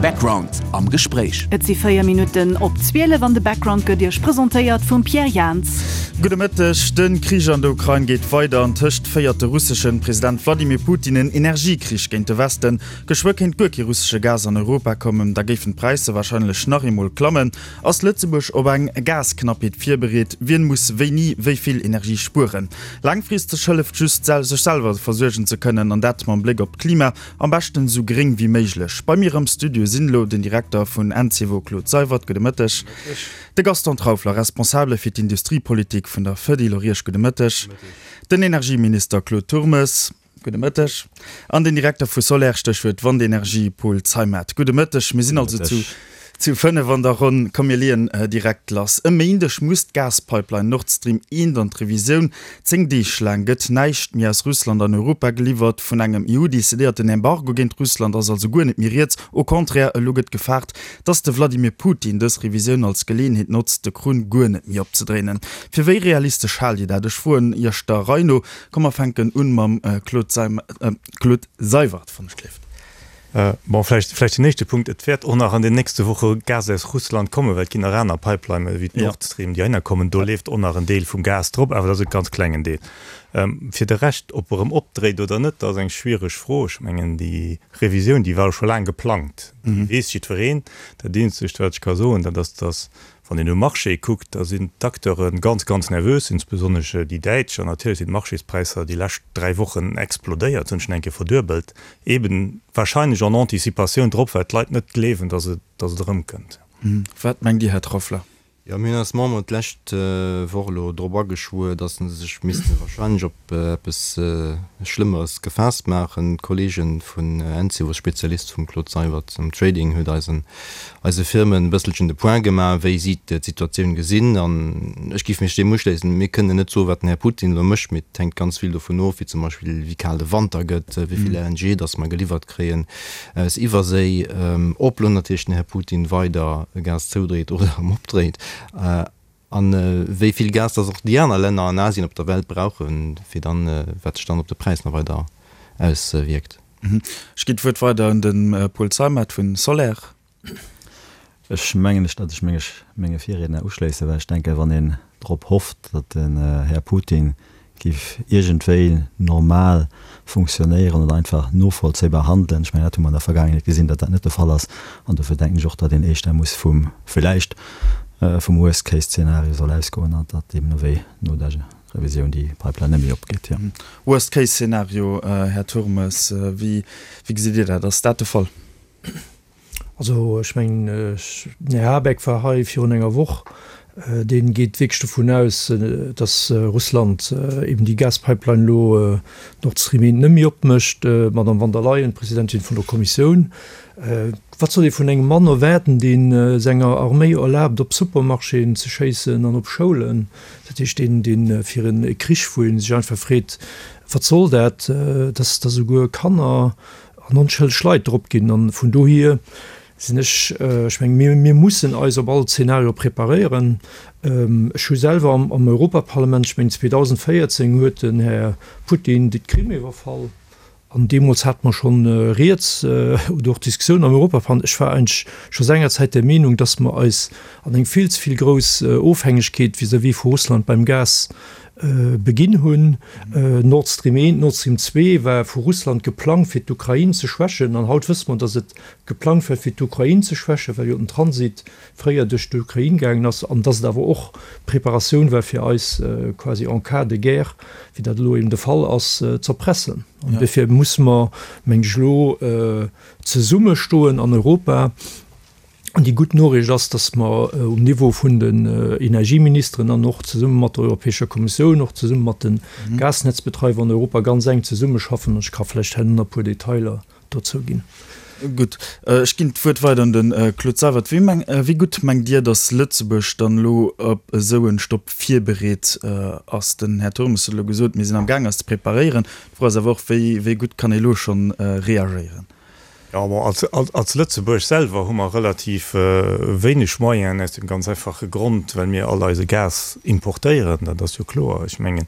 Background am Gespréich. Et si 4 Minutten op 12 an de Background gëtt Iech presentéiert vum Pierre Jans. Gudde Mëtteg. De Krich an der Ukrain geet weider. An tëscht féiert de russeschen President Wladimir Putin en Energiekrich géint de Westen. Geschwë kéint guer kee russesche Gas an Europa kommen. Da géifen d'Präisser warscheinlech nach eemol klammen. Ass Lëtzebuerg op eng Gasknappheet virbereet? Wien muss wéini wéi vill Energie spueren? Laangfristeg hëlleft just, sech selwer versuergen ze kënnen, an dat mam Bléck op d'Klima. Am beschten esou gréng wéi méiglech. Bei mir am Studio sinn elo den Direkter vun Encevo Claude Seywert, gudde Mëtteg, de Gaston Trauffler, Responsabele fir d'Industriepolitik vun der Fedil, och Iech gudde Mëtteg, den Energieminister Claude Turmes, gudde Mëtteg, an den Direkter vu Soler, Stéchwuert Wandenergie, Paul Zeimet, gudde Mëtteg. Mir sinn also zu. Zu 5 an der Ronn. Komm mir leeën direkt lass. E Méindeg muss d'Gaspipeline Nord Stream 1 an d'Revisioun. 10 Deeg laang gëtt näischt méi aus Russland an Europa geliwwert. Vun engem EU-decidéierten Embargo géint Russland ass also guer net méi rieds. Au contraire, elo gëtt gefaart, datt de Vladimir Putin dës Revisioun als Geleeënheet notzt, de Krunn guer net méi opzedréinen. Fir wéi realistesch haalt Dir dat? Ech froen Iech der Rei no. Komm mer fänken un mam Claude Seywert, wann ech gleeft. Bon, vläicht, vläicht den éischte Punkt, Et wäert och nach an den nächste Woche Gas aus Russland kommen, well et ginn nach aner Pipelinen wéi d'Nord Stream, déi heihinner kommen. Do leeft och nach en Deel vum Gas drop, awer dat ass e ganz klengen Deel. Fir de Rescht, ob e erëm opdréit oder net, dat ass eng schwiereg Fro. Ech mengen, déi Revisioun, déi war jo scho laang geplangt, déi weess jiddwereen. Dat Eenzegt, wat ech ka soen, dat ass, dass Wann een um Marché kuckt, da sinn d'Acteure ganz, ganz nervös, insbesonnesch déi Däitsch. An natierlech sinn d'Marchéspräisser déi lescht 3 Wochen explodéiert, hunn schon eng Kéier verduebelt, eben wahrscheinlech en Anticipatioun drop, well d'Leit net gleewen, dass et, dass et erëmkënnt. Wat mengt Dir, Här Trauffler? Jo, mir hunn eis Memberen d'lescht Woch elo drop ageschwuer, dass se sech misste wahrscheinlech op eppes Schlëmmeres gefaasst maachen. D'Kollege vun Encevo, Spezialist vum Claude Seywert am Trading, huet eis en eise Firmen e bësselchen de Point gemaach, wéi si d'Situatioun gesinn. An ech géif mech deem uschléissen. Mir kënnen net soen, wat den Här Putin elo mécht, mee et hänkt ganz vill dovun of, wéi zum Beispill wéi kal de Wanter gëtt, wéi vill LNG datt mer geliwwert kréien aus Iwwerséi, ob elo natierlech den Här Putin weider Gas zoudréit oder erëm opdréit a wéi vill Gas datt och déi aner Länner an Asien op der Welt brauchen, fir dann, wat sech dann op de Präis nach weider auswierkt. Ech ginn d'Wuert weider un de Paul Zeimet vun Soler. Ech mengen, datt ech mech menge Virriedner uschléissen, well ech denken, wann een drop hofft, datt den Här Putin géif iergendwéi normal funktionéieren oder einfach novollzéibar handelen, ech mengen, dat hu mer an der Vergaangenheet gesinn, datt dat net de Fall ass, an dofir denken ech och, datt een éischter muss vum, villäicht vum Worst-Case-Zeenario soll ausgoen an datt deemno wéi no der Revisioun déi Pipeline net méi opgeet, jo. Worst case Szenario, Här Turmes, wéi gesitt Dir dat? Ass dat de Fall? Also ech mengen, den Här Habeck war hei virun enger Woch, dee geet wierklech dovun aus, datt Russland eben déi Gaspipeline elo Nord Stream 1 net méi opmécht. D'Madame von der Leyen, d'Presidentin vun der Kommissioun, Wat soll ee vun engem Mann erwaarden, dee senger Arméi erlaabt, op Supermarchéen ze schéissen an op Schoulen? Dat heescht, deen, dee fir e Krich, wou ee sech einfach freet, Wat soll dat, dass da souguer Kanner an onschëlleg Leit drop ginn? An vun dohier sinn ech, ech mengen, mir, mir mussen eis op all Zeenario preparéieren. Ech hu selwer am Europaparlament, ech mengen 2014 huet den Här Putin d'Krim iwwerfall, An deemools hate mer schonn rieds oder och Diskussioun am Europaparlament. Ech war eigentlech scho sengerzäit der Meenung, dass mer eis an eng vill ze vill grouss Ofhängegkeet vis-à-vis vu Russland beim Gas beginn hunn. Nord Stream 1, Nord Stream 2 war vu Russland geplangt, fir d'Ukrain ze schwächen. An haut wësse mer, dass et geplangt war, fir d'Ukrain ze schwächen, well jo den Transit fréier duerch d'Ukrain gaangen ass, an dass et awer och Preparatioun war fir eis quasi en cas de guerre, wéi dat elo eben de Fall ass, z'erpressen. An duerfir musse mer, mengen ech, elo zesummestoen an Europa. An déi gutt Noriicht ass, dass mer um Niveau vun den Energieministeren an och zesumme mat der Europäescher Kommissioun, och zesumme mat de Gasnetzbetreiwer an Europa ganz enk zesummeschaffen. An ech ka vläicht herno nach e puer Detailer dozou ginn. Gutt, ech ginn d'Wuert weider un de Claude Seywert. Wéi meng, wéi gutt mengt Dir, datt Lëtzebuerg dann elo op esou en Stopp virbereet ass? Den Här Turmes huet elo gesot, mir sinn am Gaang eis ze preparéieren. D'Fro ass awer och, wéi, wéi gutt kann ee elo schonn reagéieren? Jo, bon, als, als, als Lëtzebuerg selwer hu mer relativ wéineg Moyenen, aus dem ganz einfache Grond, well mir all eise Gas importéieren. Dat ass jo kloer. Ech mengen,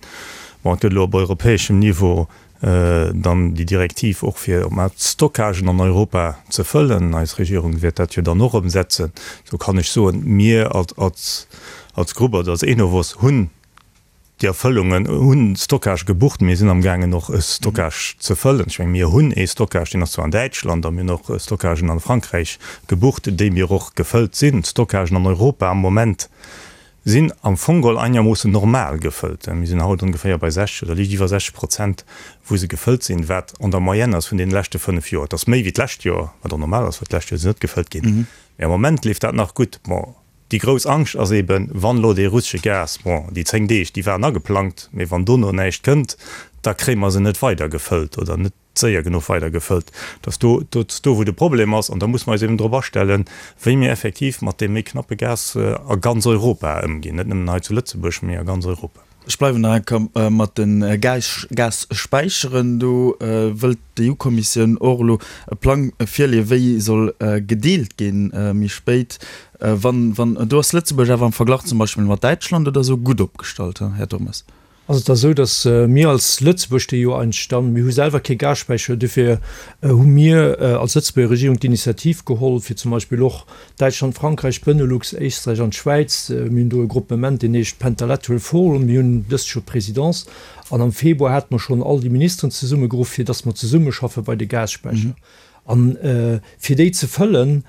bon, et gëtt elo op europäeschem Niveau. Dann déi Direktiv och fir op d'mannst d'Stockagen an Europa ze fëllen. Eis Regierung wäert dat jo dann och ëmsetzen. Sou kann ech soen, mir als als Grupp oder als Enovos hunn déi Erfëllungen, hunn Stockage gebucht. Mir sinn amgaangen och e Stockage ze fëllen. Ech menge mir hunn ee Stockage, deen ass zwar an Däitschland, a mir hunn och Stockagen an Frankräich gebucht, déi mir och gefëllt sinn. D'Stockagen an Europa am Moment sinn am Fong geholl einermoossen normal gefëllt. Mir sinn haut ongeféier bei 60 oder liicht iwwer 60 Prozent, wou se gefëllt sinn, wat an der Moyenne ass vun deene leschte 5 Joer. Et ass méi wéi d'lescht Joer, wat och normal ass, well d'lescht Joer si net gefëllt ginn. Mee am Moment leeft dat nach gutt. Bon, déi grouss Angscht ass eeben, wann elo dee russesche Gas, bon, déi 10 Deeg, déi waren ageplangt, mee wann dono näischt kënnt, da kréie mer se net weider gefëllt oder net séier genuch weider gefëllt. Dass do, dat ass do wou de Problem ass an da muss mer eis eben drop astellen, wéi mir effektiv mat deem méi knappe Gas a ganz Europa ëmginn, net nëmmen hei zu Lëtzebuerg, mee a ganz Europa. Ech bleiwen nach eng Kéier mat de Gasspäicheren. Do wëllt d'EU-Kommissioun och elo e Plang virleeën, wéi soll gedeelt ginn méi spéit. Wann, wann, do ass Lëtzebuerg awer am Verglach zum Beispill mat Däitschland oder esou gutt opgestallt, Här Turmes? Ass et da sou, datt mir als Lëtzebuerg, déi jo eigentlech dann, mir hu selwer kee Gasspäicher, duerfir hu mir als Lëtzebuerger Regierung d'Initiativ geholl, fir zum Beispill och Däitschland, Frankräich, Benelux, Éisträich an d'Schwäiz, mir hunn do e Gruppement, deen heescht Pentalateral Forum, mir hunn dëst Joer d'Présidence an am Februar hate mer schonn all déi Ministeren zesummegeruff, fir datt mer zesummeschaffe bei de Gasspäicher. A fir déi ze fëllen,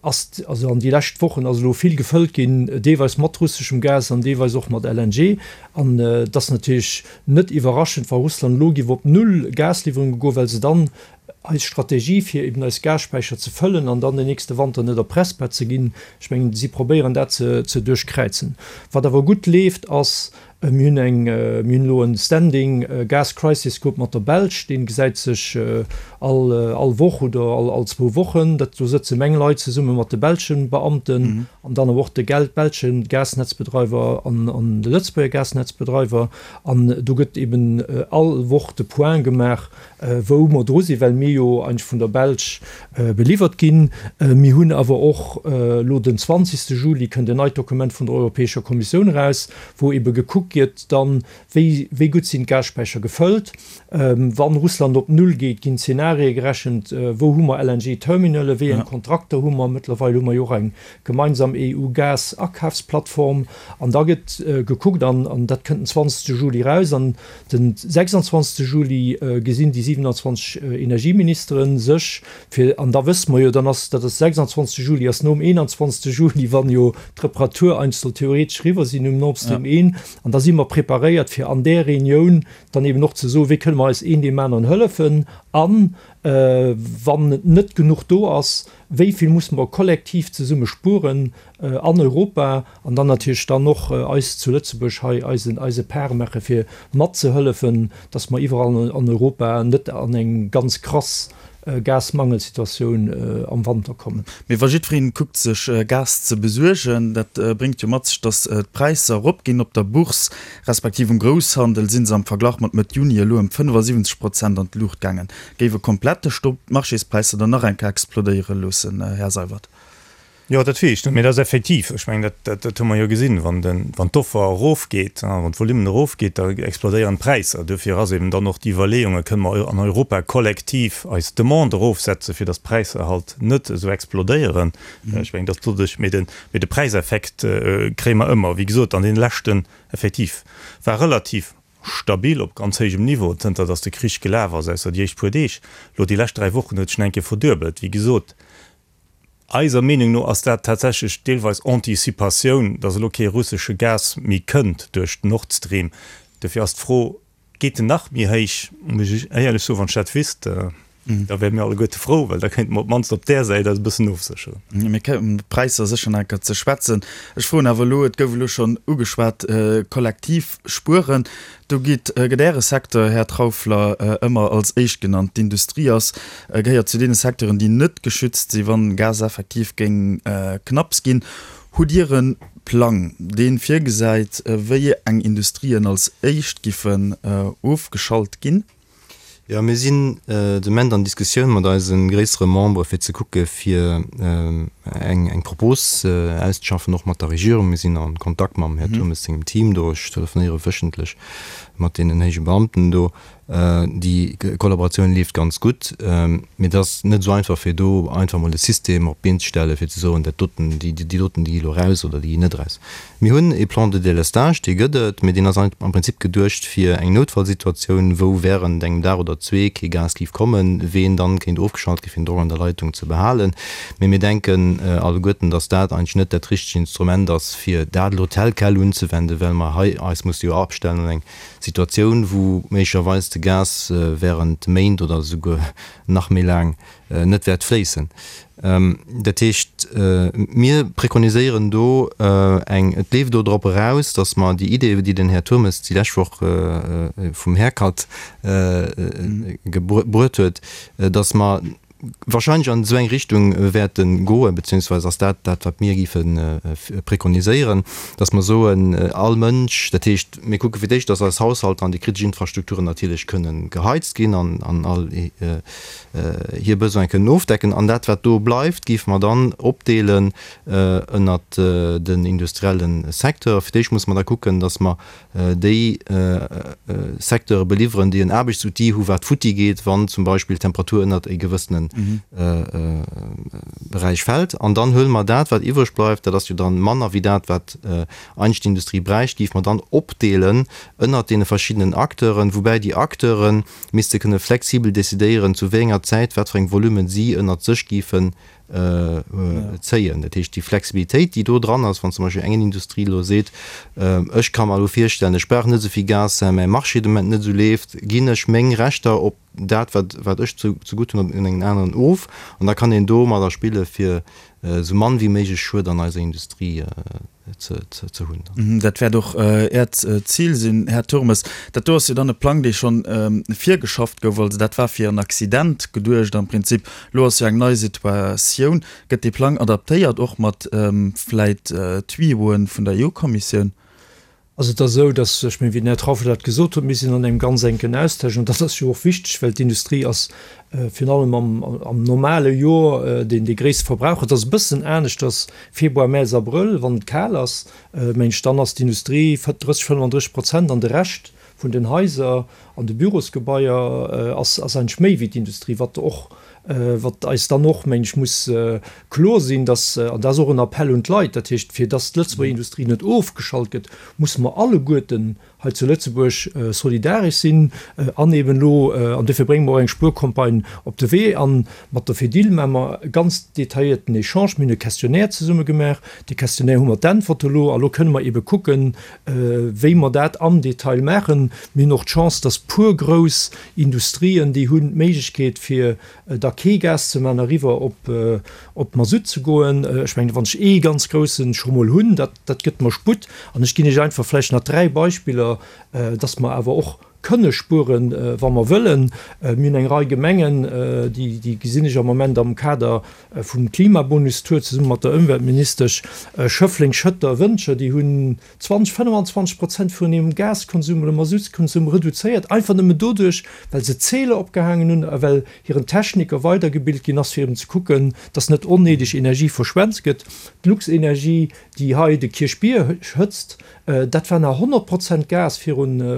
ass, also an déi lescht Wochen ass elo vill gefëllt ginn, deelweis mat russeschem Gas an deelweis och mat LNG. An et ass natierlech net iwwerraschend, wa Russland elo géif op null Gasliwwerunge goen, well se dann eis Strategie, fir eben eis Gasspäicher ze fëllen an dann den nächste Wanter net erpressbar ze ginn, ech mengen, si probéieren dat ze duerchkräizen. Wat awer gutt leeft, ass, Mir hunn eng, mir hunn elo en Standing Gas Crisis Group mat der Belsch, dee gesäit sech all all Woch oder all all zwou Wochen. Dat, do sëtze meng Leit zesumme mat de belsche Beamten an dann awer och de gel belsche Gasnetzbedreiwer an an de Lëtzebuerger Gasnetzbedreiwer. An do gëtt eben all Woch de Point gemaach, wou mer dru sinn, well mir jo eigentlech vun der Belsch beliwwert ginn. Mir hunn awer och elo den 20. Juli kënnt en neit Dokument vun der Europäescher Kommissioun eraus, wou ebe gekuckt gëtt dann, wéi wéi gutt sinn d'Gasspäicher gefëllt. Wann Russland op Null geet, ginn Zenarie gerechent, wou hu mer LNG-Terminale, wéi eng Kontrakter hu mer. Mëttlerweil hu mer jo och eng gemeinsam EU-Gas-Akafsplattform. An da gëtt gekuckt, an dat kënnt den 20. Juli eraus, an Den 26 Juli gesinn déi 27 Energieministere sech fir, an da wësse mer jo, dann ass, dat ass 26 Juli ass nom 21 Juli, wann jo d'Reparatur eigentlech soll theoretesch eriwwer sinn um Nord Stream 1, an da si mer preparéiert fir an där Reunioun dann eben och ze soen, wéi kënne mer eis een deem aneren hëllefen an, wann et net genuch do ass, wéi vill musse mer kollektiv zesumme spueren an Europa an dann natierlech dann och eis zu Lëtzebuerg hei eisen eise Part maache fir matzehëllefen, dass mer iwwerall an Europa net an eng ganz krass Gasmangelsituatioun am Wanter kommen. Mee wa jiddwereen kuckt sech Gas ze besuergen, dat bréngt jo mat sech, dass d'Präisser eropginn. Op der Bourse respektiv um Grousshandel si se am Verglach mat Mëtt Juni elo ëm 75 Prozent an d'Luucht gaangen. Géif e komplette Stopp d'Marchéspräisser dann nach eng Kéier explodéiere loossen, Här Seywert? Jo, dat weess ech net, mee dat ass effektiv, ech mengen, dat, dat hu mer jo gesinn, wann den, wann d'Offer erofgeet, wann d'Volumen erofgeet, da explodéieren d'Präisser. Duerfir ass eben dann och déi Iwwerleeung, Kënne mer an Europa kollektiv eis Demande erofsetzen, fir datt d'Präisser halt net esou explodéieren? Ech mengen, datt doduerch, mee de, mee de Präiseffekt kréie mer ëmmer. Wéi gesot, an deene leschten, effektiv, war relativ stabil op ganz héijem Niveau, zënter datt de Krich gelaf ass, ausser déi éischt puer Deeg. Elo déi lescht 3 Wochen huet sech nach eng Kéier verduebelt. Wéi gesot, Eiser Meenung no ass dat tatsächlech deelweis Anticipatioun, dass elo kee russesche Gas méi kënnt duerch Nord Stream. Dofir ass d'Fro, Geet en nach méi héich? Muss ech éierlech soen, wann ech dat wüsst, da wäre mir alleguerte frou, well da kéinte mer op d'mannst op där Säit eis e bëssen ofsécheren. Mir kéimen op d'Präisser sécher nach eng Kéier ze schwätzen. Ech froen awer elo, et gouf elo schonn ugeschwat, kollektiv spueren. Do geet, gëtt Äre Secteur, Här Trauffler, ëmmer als éischt genannt. D'Industrie ass, gehéiert zu deene Secteuren, déi net geschützt sinn, wann Gas effektiv géing knapps ginn. Hutt Dir e Plang, dee virgesäit, wéi eng Industrien als éischt giffen ofgeschalt ginn? Jo, mir sinn de Moment an Diskussioun mat eise gréissere Membere fir ze kucke fir. eng Propos auszeschaffen, och mat der Regierung. Mir sinn a Kontakt mam Här Turmes sengem Team do. Ech telefonéiere wéchentlech mat deenen héije Beamten do. Déi Kollaboratioun leeft ganz gutt, mee et ass net esou einfach, fir do einfach emol e System op d'Been ze stellen, fir ze soen, dat doten, déi doten, déi gi elo raus oder déi ginn net raus. Mir hunn e Plan de délestage, dee gëtt et, mee deen ass am Prinzip geduecht fir eng Noutfallsituatioun, wou während engem Dag oder zwee kee Gas géif kommen, ween dann kéint ofgeschalt gi fir den Drock an der Leitung ze behalen. Mee mir denken alleguerten, datt dat eigentlech net dat richtegt Instrument ass, fir dat elo tel quel unzewenden, well mer hei eis musse jo abstellen un eng Situatioun, wou méiglecherweis de Gas während Méint oder esouguer nach méi laang net wäert fléissen. Dat heescht, mir prekoniséieren do eng, et leeft do drop eraus, datt mer déi Idee, déi den Här Turmes déi lescht Woch vum Haircut gebruet huet, datt mer wahrscheinlech an esou eng Richtung wäerte goen, beziehungsweise ass dat dat, wat mir géife prekoniséieren, dass mer soen, all Mënsch, dat heescht, mir kucke fir d'éischt, dass eis Haushalter an déi kritesch Infrastrukturen natierlech kënnen geheizt ginn an an all hir Besoine kënnen ofdecken. An dat, wat do bleift, géife mer dann opdeelen ënnert den industrielle Secteur. Fir d'éischt musse mer da kucken, dass mer déi Secteure beliwweren, déi en Aarbechtsoutil hu wat futti geet, wann zum Beispill d'Temperatur ënnert e gewëssene Beräich fält. An dann huele mer dat, wat iwwreg bleift, dat ass jo dann manner wéi dat, wat eigentlech d'Industrie bräicht, géife mer dann opdeelen ënnert deene verschiddenen Acteuren, woubäi déi Acteure misste kënne flexibel decidéieren, zu wéi enger Zäit wat fir eng Volumen si ënnert sech géifen zéien. Dat heescht, déi Flexibilitéit, déi do dran ass, wann zum Beispill eng Industrie elo seet, ech ka mer elo virstellen, ech brauch net esou vill Gas, well mäi Marché de Moment net esou leeft, ginn ech meng Rechter op dat, wat, wat ech zu, zegutt hunn, un engen aneren of. An da kann een domadder spille fir esou mann wéi méiglech Schued an eiser Industrie ze hunn. Dat wäert och Äert Zil sinn, Här Turmes. Dat do ass jo dann e Plang, dee schonn virgeschafft gouf. Also dat war fir en Accident geduecht am Prinzip. Elo ass jo eng nei Situatioun. Gëtt dee Plang adaptéiert, och mat vläit Tuyauxen vun der EU-Kommissioun? Also et ass esou, dass, ech mengen, wéi den Här Trauffel dat gesot huet, mir sinn an engem ganz enken Austausch an dat ass jo och wichteg, well d'Industrie ass virun allem am, am normale Joer deen dee gréisste Verbraucher. Et ass e bëssen aneschters Februar, Mäerz, Abrëll, wann et kal ass, mengen ech, dann ass d'Industrie 30, 35 Prozent an de Rescht vun den Haiser an de Bürosgebaier ass, ass eigentlech méi wéi d'Industrie, wat och, wat eis dann och, mengen ech, muss kloer sinn, dass, an dat ass och en Appell un d'Leit, dat heescht, fir dass d'Lëtzebuerger Industrie net ofgeschalt gëtt, musse mer alleguerten hei zu Lëtzebuerg solidaresch sinn an eben elo, an dofir brénge mer och eng Spuercampagne op de Wee, a mat der Fedil maache mer e ganz detailléierten Echange. Mir hunn e Questionnaire zesumme gemaach, dee Questionnaire hu mer d'Äntwerte elo, a lo kënne mer ebe kucken, wéi mer dat am Detail maachen. Mir hunn och d'Chance, dass puer grouss Industrien, déi hunn d'Méiglechkeet fir da kee Gas ze maachen, eriwwer op op Masutt ze goen. Ech mengen, wann ech ee ganz groussen scho mol hunn, dat dat gëtt mer Sputt. An ech ginn Iech einfach vläicht nach 3 Beispiller, dass mer awer och kënne spueren, wa mer wëllen. Mir hunn eng Rei Gemengen, déi déi gesinn ech am Moment am Kader vum Klimabonus-Tour zesumme mat der Ëmweltministesch, Schëffleng, Schëtter, Wëntger, déi hunn 20, 25 Prozent vun hirem Gaskonsum oder Masutskonsum reduzéiert, einfach nëmmen doduerch, well se Zähler opgehaangen hunn a well hiren Techniker weidergebilt ginn ass, fir eben ze kucken, dass net onnéideg Energie verschwent gëtt. D'Luxenergie, déi hei de Kierchbier hëtzt, dat war nach 100 Prozent Gas virun e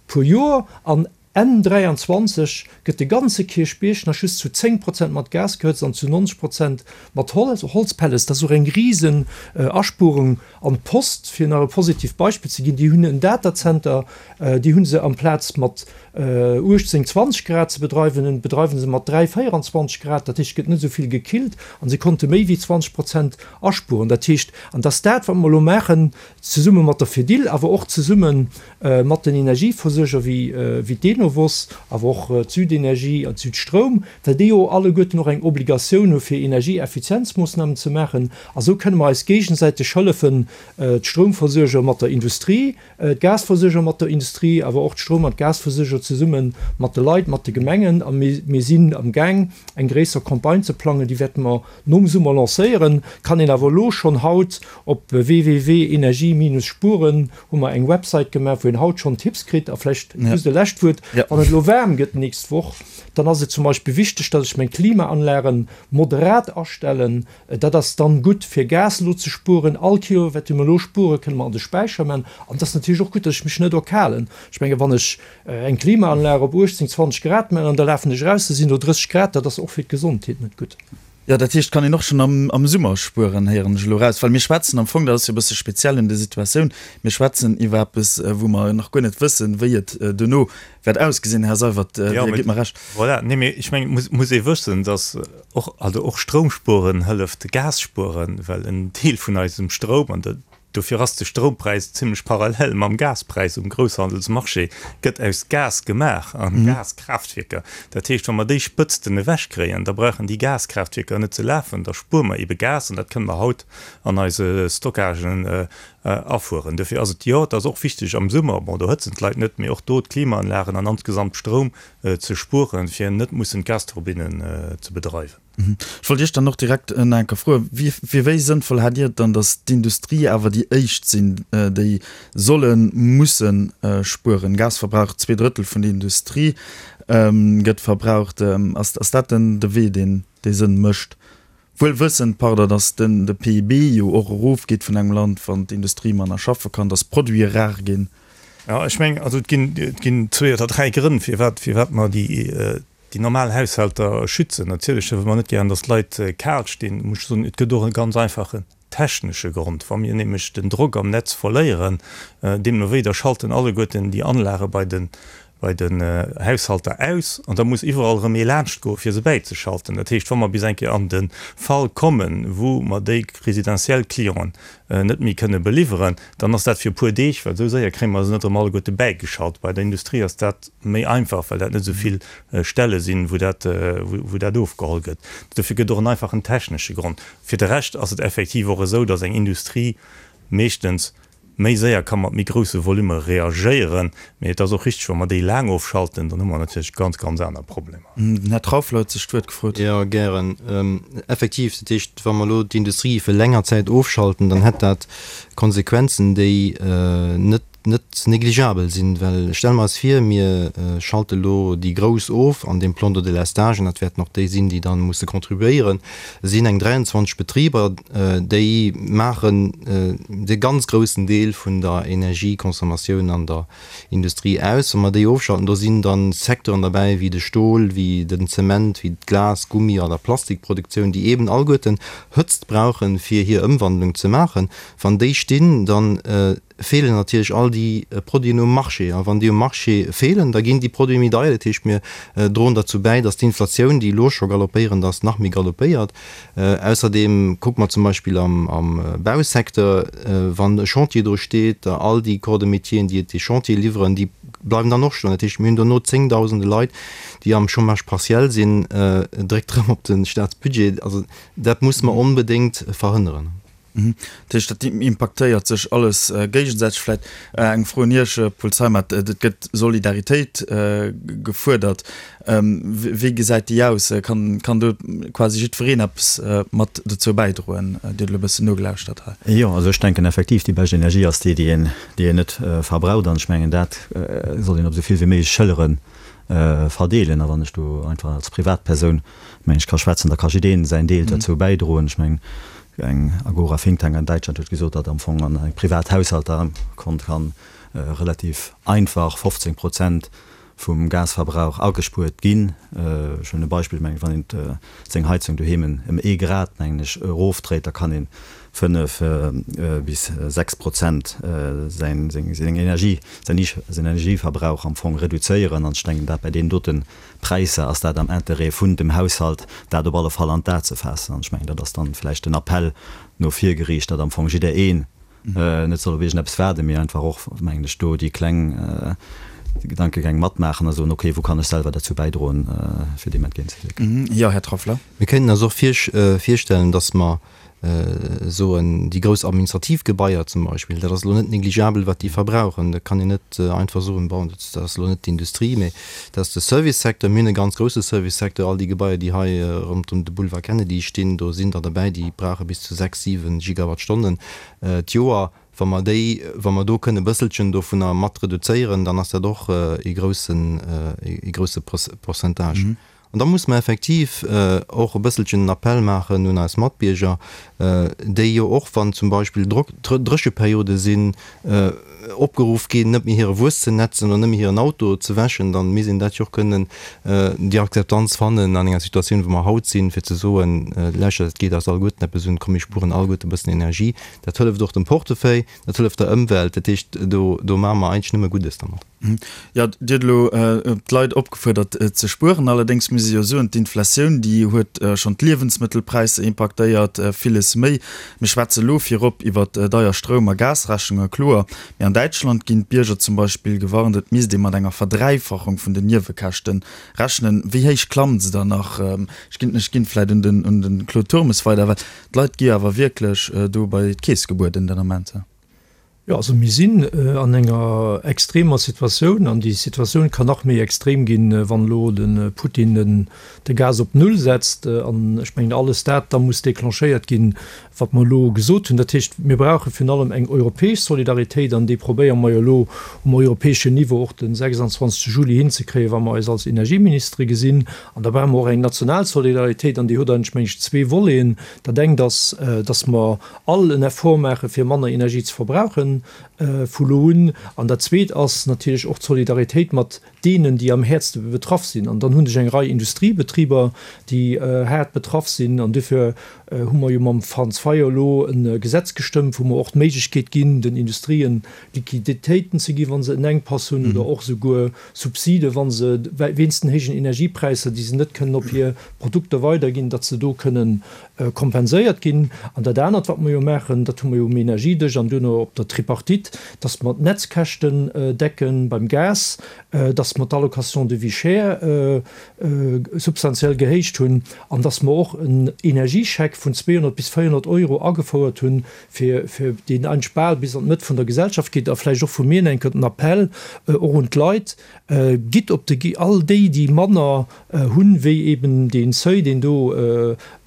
puer Joer an Enn 23 gëtt de ganze Kierchbierg nach just zu 10 Prozent mat Gas gehëtzt an zu 90 Prozent mat Holzpellets. Dat ass och eng risen Aspuerung. An d'Post, fir nach e positivt Beispill ze ginn, déi hunn en Datacenter, déi hu se amplaz mat 18, 20 Grad ze bedreiwen, bedreiwe se mat 3, 24 Grad. Dat heescht, et gëtt net esou vill gekillt a se konnte méi wéi 20 Prozent aspueren. Dat heescht, an dat ass dat, wat mer elo maachen, zesumme mat der Fedil, awer och zesumme mat den Energieversuerger wéi d'Enovos, awer och d'Südenergie an d'Südstroum, well déi jo alleguerten och eng Obligatioun hu fir Energieeffizienzmoossnamen ze maachen. A sou kënne mer eis géigesäiteg hëllefen, d'Stroumversuerger mat der Industrie, d'Gasversuerger mat der Industrie, awer och d'Stroum an d'Gasversuerger. zesumme mat de Leit, mat de Gemengen a mir sinn am Gaang eng gréisser Campagne ze plangen, déi wäerte mer nom Summer lancéieren. Kann een awer elo schonn haut op www.energie-spuren hu mer eng Website gemaach, wou een haut schonn Tipps kritt. A vläicht just e lescht Wuert, Wann et elo waarm gëtt d'nächst Woch, dann ass et zum Beispill wichteg, datt ech meng Klimaanlagen moderat astellen. Dat ass dann gutt fir Gas elo ze spueren. All Kilowatt, déi mer elo spueren, kënne mer an de Späicher man. An et ass natierlech och gutt, datt ech mech net erkalen. Ech menge wann ech eng Klimaanlag op 18, 20 Grad man an da lafen ech eraus, da sinn do 30 Grad, dat ass och fir d'Gesondheet net gutt. Jo, dat heescht, kann een och schonn am am Summer spueren, héieren ech elo eraus. Well mir schwätzen am Fong, dat ass jo e bësse speziell un der Situatioun, mir schwätzen iwwer eppes, wou mer nach guer net wëssen, wéi et duerno wäert ausgesinn. Här Seywert, Dir gitt mer Recht. Voilà, nee, mee ech mengen, et muss ee wëssen, datt och, also och Stroumspueren hëlleft Gas spueren, well en Deel vun eisem Stroum, an Dofir ass de Stroumpräis zimlech parallel mam Gaspräis um Grousshandelsmarché, gëtt aus Gas gemaach a Gaskraaftwierker. Dat heescht, wa mer déi Spëtzten ewechkréien, da brauchen déi Gaskraaftwierker net ze lafen, da spuere mer ebe Gas an dat kënne mer haut an eise Stockagen afueren. Dofir ass et, jo, et ass och wichteg am Summer, bon, do hëtzen d'Leit net, mee och do d'Klimaanlagen an insgesamt Stroum ze spueren, fir net mussen d'Gasturbinnen ze bedreiwen. Ech wollt Iech dann och direkt nach eng Kéier froen, Fir wéi sënnvoll haalt Dir et dann, datt d'Industrie awer déi éischt sinn, déi sollen, mussen spueren? Gasverbrauch, 2 Drëttel vun der Industrie gëtt verbraucht. Ass dat denn de Wee, deen dee Sënn mécht? Wuel wëssend, pardon, datt den de PIB jo och erofgeet vun engem Land, wann d'Industrie manner schaffe kann, datt Produite rar ginn. Jo, ech mengen, also et ginn, et ginn zwee oder dräi Grënn, firwat, firwat mer déi, déi normal Haushalter schützen. Natierlech wëlle mer net gären, datt d'Leit kal stinn. Muss ech soen, et gëtt och e ganz einfachen technesche Grond. Wa mir nämlech den Drock am Netz verléieren, deemno wéi, da schalten alleguerten déi Anlage bei den, bei den Haushalter aus an da muss iwwerall erëm ee laanschtgoen, fir se bäizeschalten. Dat heescht, wa mer bis eng Kéier an de Fall kommen, wou mer déi residentiell Clienten net méi kënne beliwweren, dann ass dat fir e puer Deeg, well esou séier kréie mer se net erëm alleguerte bäigeschalt. Bei der Industrie ass dat méi einfach, well dat net esou vill Stelle sinn, wou dat, wou dat ofgeholl gëtt. Dofir gëtt och en einfachen technesche Grond. Fir de Rescht ass et effektiv och esou, datt eng Industrie meeschtens méi séier ka mat méi grousse Volume reagéieren. Mee et ass och richteg, wa mer déi laang ofschalten, dann hu mer natierlech ganz, ganz aner Problemer. Den Här Trauffler huet sech d'Wuert gefrot. Jo, gären. Effektiv, dat heescht, wa mer elo d'Industrie fir länger Zäit ofschalten, dann hätt dat Konsequenzen, déi net, net négligeabel sinn. Well stelle mer eis vir, mir schalte elo déi Grouss of an deem Plan de délestage, an dat wäerten och déi sinn, déi da musse contribuéieren, sinn eng 23 Betriber, déi maachen de ganz groussen Deel vun der Energieconsommatioun an der Industrie aus. Wa mer déi ofschalten, do sinn da Secteuren derbäi wéi de Stol, wéi den Zement, wéi d'Glas-, Gummi oder Plastikproduktioun, déi eeben alleguerten Hëtzt brauchen, fir hir Ëmwandlung ze maachen. Wann déi stinn, da feelen natierlech all déi Produiten um Marché. A wann déi um Marché feelen, da ginn déi Produite méi deier. Dat heescht, mir droen derzou bäi, datt d'Inflatioun, déi elo scho galoppéierend ass, nach méi galoppéiert. Ausserdeem kucke mer zum Beispill am Bausecteur, wann e Chantier do steet, all déi Corps de métieren, déi et dee Chantier liwweren, déi bleiwen dann och stoen. Dat heescht, mir hunn dono zéngdausende Leit, déi am Chômage partiel sinn, dréckt erëm op de Staatsbudget. Also dat musse mer onbedéngt verhënneren. Dat heescht, dat impaktéiert sech alles géigesäiteg. Vläicht eng Fro un Iech, Paul Zeimet, Et gëtt Solidaritéit gefuerdert. Wéi gesäit déi aus? Kann do quasi jiddwereen eppes mat dozou bäidroen? Dir hutt elo e bëssen nogelauschtert hei. Jo, also ech denken effektiv, déi bescht Energie ass déi, déi een, déi een net verbraucht. An ech mengen, dat soll een op esou vill wéi méiglech Schëllere verdeelen. A wann ech do einfach als Privatpersoun, mengen ech, ka schwätzen, da ka jiddeen säin Deel dozou bäidroen. Ech mengen, Eng Agora Think Tank an Däitschland huet gesot, datt am Fong an engem Privathaushalter konnt kann relativ einfach 15 Prozent vum Gasverbrauch agespuert ginn. Ech hunn e Beispill, mengen ech, wann een seng Heizung doheem ëm ee Grad, mengen ech, erofdréit, da kann een 5 bis 6 Prozent säin seng Energie, säin Energieverbrauch am Fong reduzéieren. An ech denken, dat bei deenen doten Präisser ass dat am Interêt vun dem Haushalt, dat op alle Fall an d'A ze faassen. An ech mengen, dat ass dann vläicht den Appell no vir geriicht, datt am Fong jiddereen net soll op iergendeppes waarden, mee einfach och, mengen ech, do déi kleng Gedankegäng matmaachen a soen, okay, wou kann ech selwer derzou bäidroen, fir deem entgéintzewierken. Jo, Här Trauffler. Mir kënnen eis och virstellen, datt mer. Soen, déi grouss administrativ Gebaier zum Beispill, dat ass elo net négligeabel, wat déi verbrauchen. Da kann een net einfach soen, bon, dat ass elo net d'Industrie, mä dat ass de Servicesecteur. Mir hunn e ganz grousse Servicesecteur. All déi Gebaier, déi hei ronderëm de Boulevard Kennedy stinn, do sinn der derbäi, déi brauche bis zu 6, 7 Gigawattstonnen d'Joer. Wa mer déi, wa mer do kënne e bësselchen dovunner mat reduzéieren, dann ass dat och ee groussen, ee grousse Pourcentage. An da muss mer effektiv och e bësselchen en Appell maachen un eis Matbierger, déi jo och, wann zum Beispill Drécheperiode sinn, opgeruff ginn, net méi hire Wuess ze netzen oder net méi hiren Auto ze wäschen. Da misst een dat jo och kënnen, déi Akzeptanz fannen an enger Situatioun, wou mer haut sinn, fir ze soen, Lauschtert, et geet eis alleguerten eppes un, komm mir spueren alleguerte e bëssen Energie. Dat hëlleft och dem Portefeuille, dat hëlleft der Ëmwelt. Dat heescht, do maache mer eigentlech nëmme Guddes dermat. Jo, Dir hutt elo d'Leit opgefuerdert ze spueren. Allerdéngs muss ee jo soen, d'Inflatioun, déi huet schonn d'Liewensmëttelpräisser impaktéiert, villes méi. Mir schwätze elo virop iwwer deier Stroum a Gasrechnunge, kloer. Mee an Däitschland ginn d'Bierger zum Beispill gewarnt, et misst ee mat enger Verdräifachung vun den Niewekäschte rechnen. Wéi héich klammt se dann nach? Ech ginn, ech ginn vläicht un den, un de Claude Turmes weider, well d'Leit gi jo awer wierklech do bei d'Keess gebueden den Ament. Jo, also mir sinn an enger extremer Situatioun an déi Situatioun kann nach méi extrem ginn, wann elo de Putin de Gas op Null setzt. An ech mengen, alles dat da muss declenchéiert ginn, wat mer elo gesot hunn. Dat heescht, mir brauche virun allem eng europäesch Solidaritéit an déi probéiere mer jo elo um europäeschen Niveau och de 26 Juli hinzekréien, wa mer eis als Energieministere gesinn. An da brauche mer och eng national Solidaritéit an déi huet eigentlech, meng ech, zwee Voleten. Dat engt ass, datt mer all en Effort maache fir manner Energie ze verbrauchen vu lo un. An dat Zweet ass natierlech och d'Solidaritéit mat deenen, déi am häertste betraff sinn. An dann hunn ech eng Rei Industriebetriber, déi haart betraff sinn. An duerfir hu mer jo mam Franz Fayot elo e Gesetz gestëmmt, wou mer och d'Méiglechkeet ginn, den Industrien Liquiditéiten ze ginn, wa se en Enkpass hunn, oder och esouguer Subside, wa se wéinst den héijen Energiepräisser, déi se net kënnen op hir Produkter weiderginn, datt se do kënnen kompenséiert ginn. An dat anert, wat mer jo maachen, dat hu mer jo um Energiedësch an duerno op der Tripartite, dass mer d'Netzkäschten decken beim Gas, dass mer d'Allocation de vie chère substantiell gehéicht hunn an dass mer och en Energiescheck vun 200 bis 400 Euro agefouert hunn, fir deen eigentlech bal bis an d'Mëtt vun der Gesellschaft geet. A vläicht och vu mir eng Kéier den Appell och un d'Leit, Gitt op de, all déi, déi manner hunn, wéi eben dee Seuil, deen do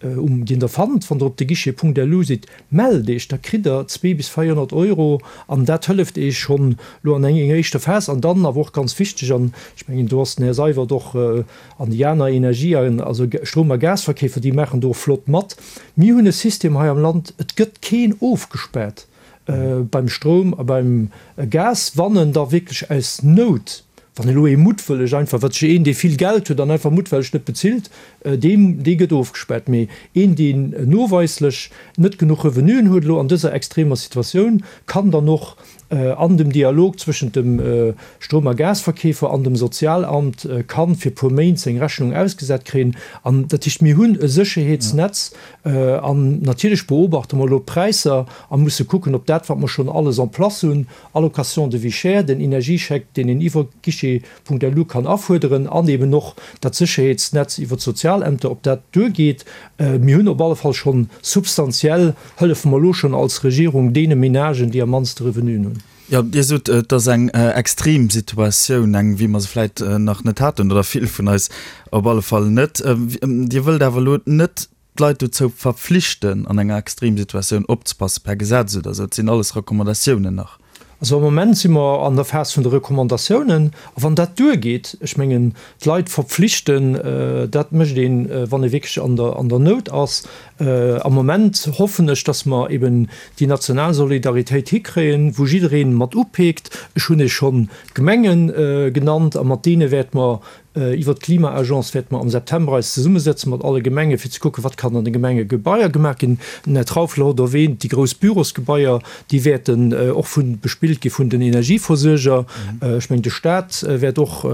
um, deen Der fannt, wann Der op de Guichet.lu sidd, mellt Iech, da kritt Der 2 bis 400 Euro an dat hëlleft Iech schonn elo an enger éischter Phas. An dann awer och ganz wichteg, an ech mengen, do ass den Här Seywert och an déi aner Energie-, also Stroum a Gasverkeefer, déi maachen do och flott mat, Mir hunn e System hei am Land, et gëtt keen ofgespaart. beim Stroum a beim Gas, wann en da wierklech aus Nout, wann elo ee muttwëlleg einfach, wat sech een, dee vill Geld huet an einfach muttwelleg net bezilt, deem, dee gëtt ofgespaart. Mee een, deen noweislech net genuch Revenuen huet elo an dëser extremer Situatioun, kann dann och an dem Dialog zwëschent dem Stroum a Gasverkeefer an dem Sozialamt kann fir puer Méint seng Rechnung ausgesat kréien. An dat heescht, mir hunn e Sécherheetsnetz, An natierlech beobachte mer elo d'Präisser a musse kucken, ob dat, wat mer schonn alles en place hunn, Allocation de vie chère, den Energiescheck, deen een iwwer guichet.lu kann afuerderen, an eben och dat Sécherheetsnetz iwwer d'Sozialämter, ob dat duergeet. Mir hunn op alle Fall schonn substantiell, hëllefe mer elo schonn als Regierung deene Menagen, déi am mannste Revenuen hunn. Jo, Dir sot, et ass eng extrem Situatioun, eng, wéi mer se vläit nach net haten, oder vill vun eis op alle Fall net. Dir wëllt awer elo net d'Leit dozou verpflichten, an enger Extremsituatioun opzepassen, per Gesetz oder esou. Et sinn alles Recommandatiounen nach. Also am Moment si mer an der Phas vun de Recommandatiounen. A wann dat duergeet, ech mengen, d'Leit verpflichten, dat mécht een, wann ee wierklech an der, an der Nout ass. Am Moment hoffen ech, dass mer eben déi national Solidaritéit hikréien, wou jidderee mat upeekt. Ech hunn Iech schonn d'Gemenge genannt a mat deene wäerte mer Iwwert d'Klima-Agence wäerte mer am September eis zesummesetzen mat alle Gemenge fir ze kucken, wat kann an de Gemengegebaier gemaach ginn. Den Här Trauffler huet erwähnt, déi grouss Bürosgebaier, déi wäerten och vu bespillt gi vun den Energieversuerger. Ech mengen, de Stat wäert och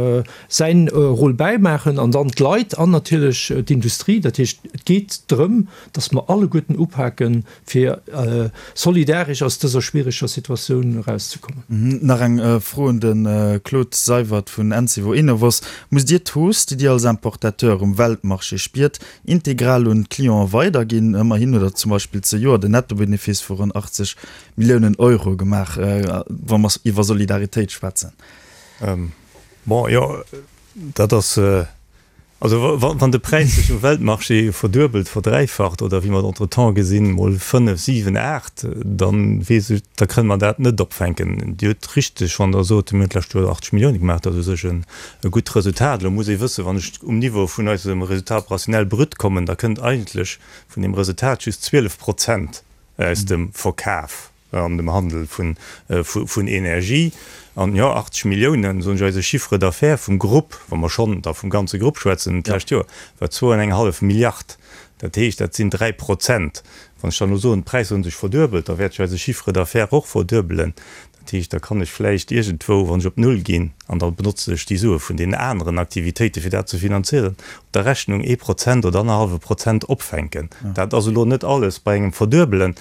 säin Rôle bäimaachen an dann d'Leit an natierlech d'Industrie. Dat heescht, et geet drëm, datt mer alleguerten upaken, fir solidaresch aus dëser schwiereger Situatioun erauszekommen. Nach eng Fro un de Claude Seywert vun Encevo Enovos, Musst Dir d'Hausse, déi Dir als Importateur um Weltmarché spiert, integral un d'Clienten weiderginn? Ëmmerhin hutt Der zum Beispill zejoert en Nettobenefice vu ronn 80 Milliounen Euro gemaach, wa mer iwwer Solidaritéit schwätzen. Bon, jo, dat ass, also wann de Präis sech um Weltmarché verduebelt, verdräifacht oder wéi mer et entretemps gesinn, mol fënnef, siwen, aacht, da weess ech, da kënne mer dat net opfänken. Dir hutt richteg, wann Der sot, mir hunn d'lescht Joer 80 Millioune gemaach, dat ass u sech e gutt Resultat. Elo muss ee wëssen, wann ech um Niveau vun eisem Résultat opérationnel brut kommen, da kënnt eigentlech vun deem Resultat just 12 Prozent aus dem Verkaf an dem Handel vun Energie. An jo, 80 Milliounen, soen ech, eise Chiffre d'affaires vum Grupp, wa mer schonn da vum ganze Grupp schwätzen, d'lescht Joer war zwou an eng hallef Milliard. Dat heescht, dat sinn 3 Prozent. Wann ech dann elo soen, d'Präisser hu sech verduebelt, da wäert sech eise Chiffre d'affaires och verduebelen. Dat heescht, da kann ech vläicht iergendwou, wann ech op Null ginn, an da benotze ech déi Sue vun deenen aneren Aktivitéiten, fir dat ze finanzieren, op der Rechnung ee Prozent oder annerhallwe Prozent opfänken. Dat ass elo net alles bei engem Verduebelen.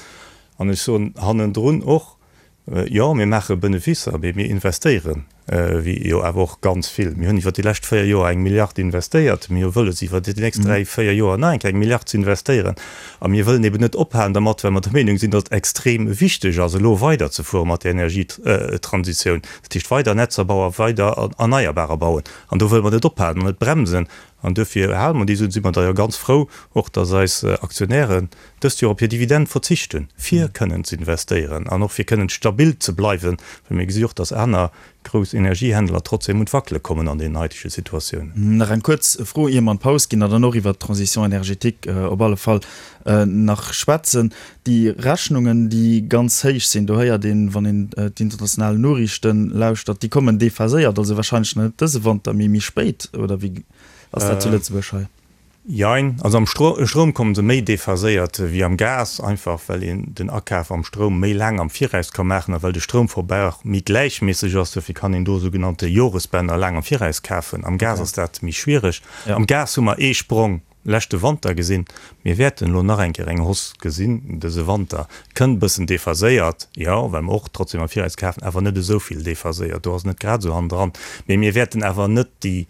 An ech soen hannendrun och, Jo, mir maache Beneficer, mee mir investéieren jo awer och ganz vill. Mir hunn iwwer déi lescht véier Joer eng Milliard investéiert. Mir hu wëlles, iwwer déi nächst dräi, véier Joer nach eng Kéier eng Milliard ze investéieren. A mir wëllen eben net ophalen dermat, well mer der Meenung sinn, datt et extrem wichteg ass, elo weiderzefuere mat der Energietransitioun, dat heescht weider Netzer bauen, weider Erneierbarer bauen. An do wëlle mer net ophalen an net bremsen. An duerfir hale mer déi Suen. Si mer da jo ganz frou och, datt eis Aktionären dëst Joer op hir Dividend verzicht hunn, fir kënnen ze investéieren an och fir kënnen stabil ze bleiwen, well mir gesi och, datt aner grouss Energiehändler trotzdem un d'Wackele kommen an deenen haitege Situatiounen. Nach eng kuerz Fro, ier mer an d'Paus ginn a dann och iwwert d'Transition énergétique op alle Fall nach schwätzen. Déi Rechnungen, déi ganz héich sinn, do héiert een, wann een d'international Noriichten lauschtert, déi kommen déphaséiert, also wahrscheinlech nach net dëse Wanter, mee méi spéit, oder wéi ass dat zu Lëtzebuerg hei? Jein, also am Stroum komme se méi déphaséiert wéi am Gas, einfach well een den Akaf am Stroum méi laang am Viraus ka maachen a well de Stroumverbrauch méi gläichméisseg ass. Dofir kann een do sougenannte Joresbänner laang am Viraus kafen. Am Gas ass dat méi schwiereg. Am Gas hu mer ee Sprong leschte Wanter gesinn. Mir wäerten elo nach eng Kéier eng Hausse gesinn dëse Wanter. Kënnt e bëssen déphaséiert, jo, well mer och trotzdem am Viraus kafen, awer net esou vill déphaséiert. Do ass et net grad esou hannendran. Mee mir wäerten awer net déi,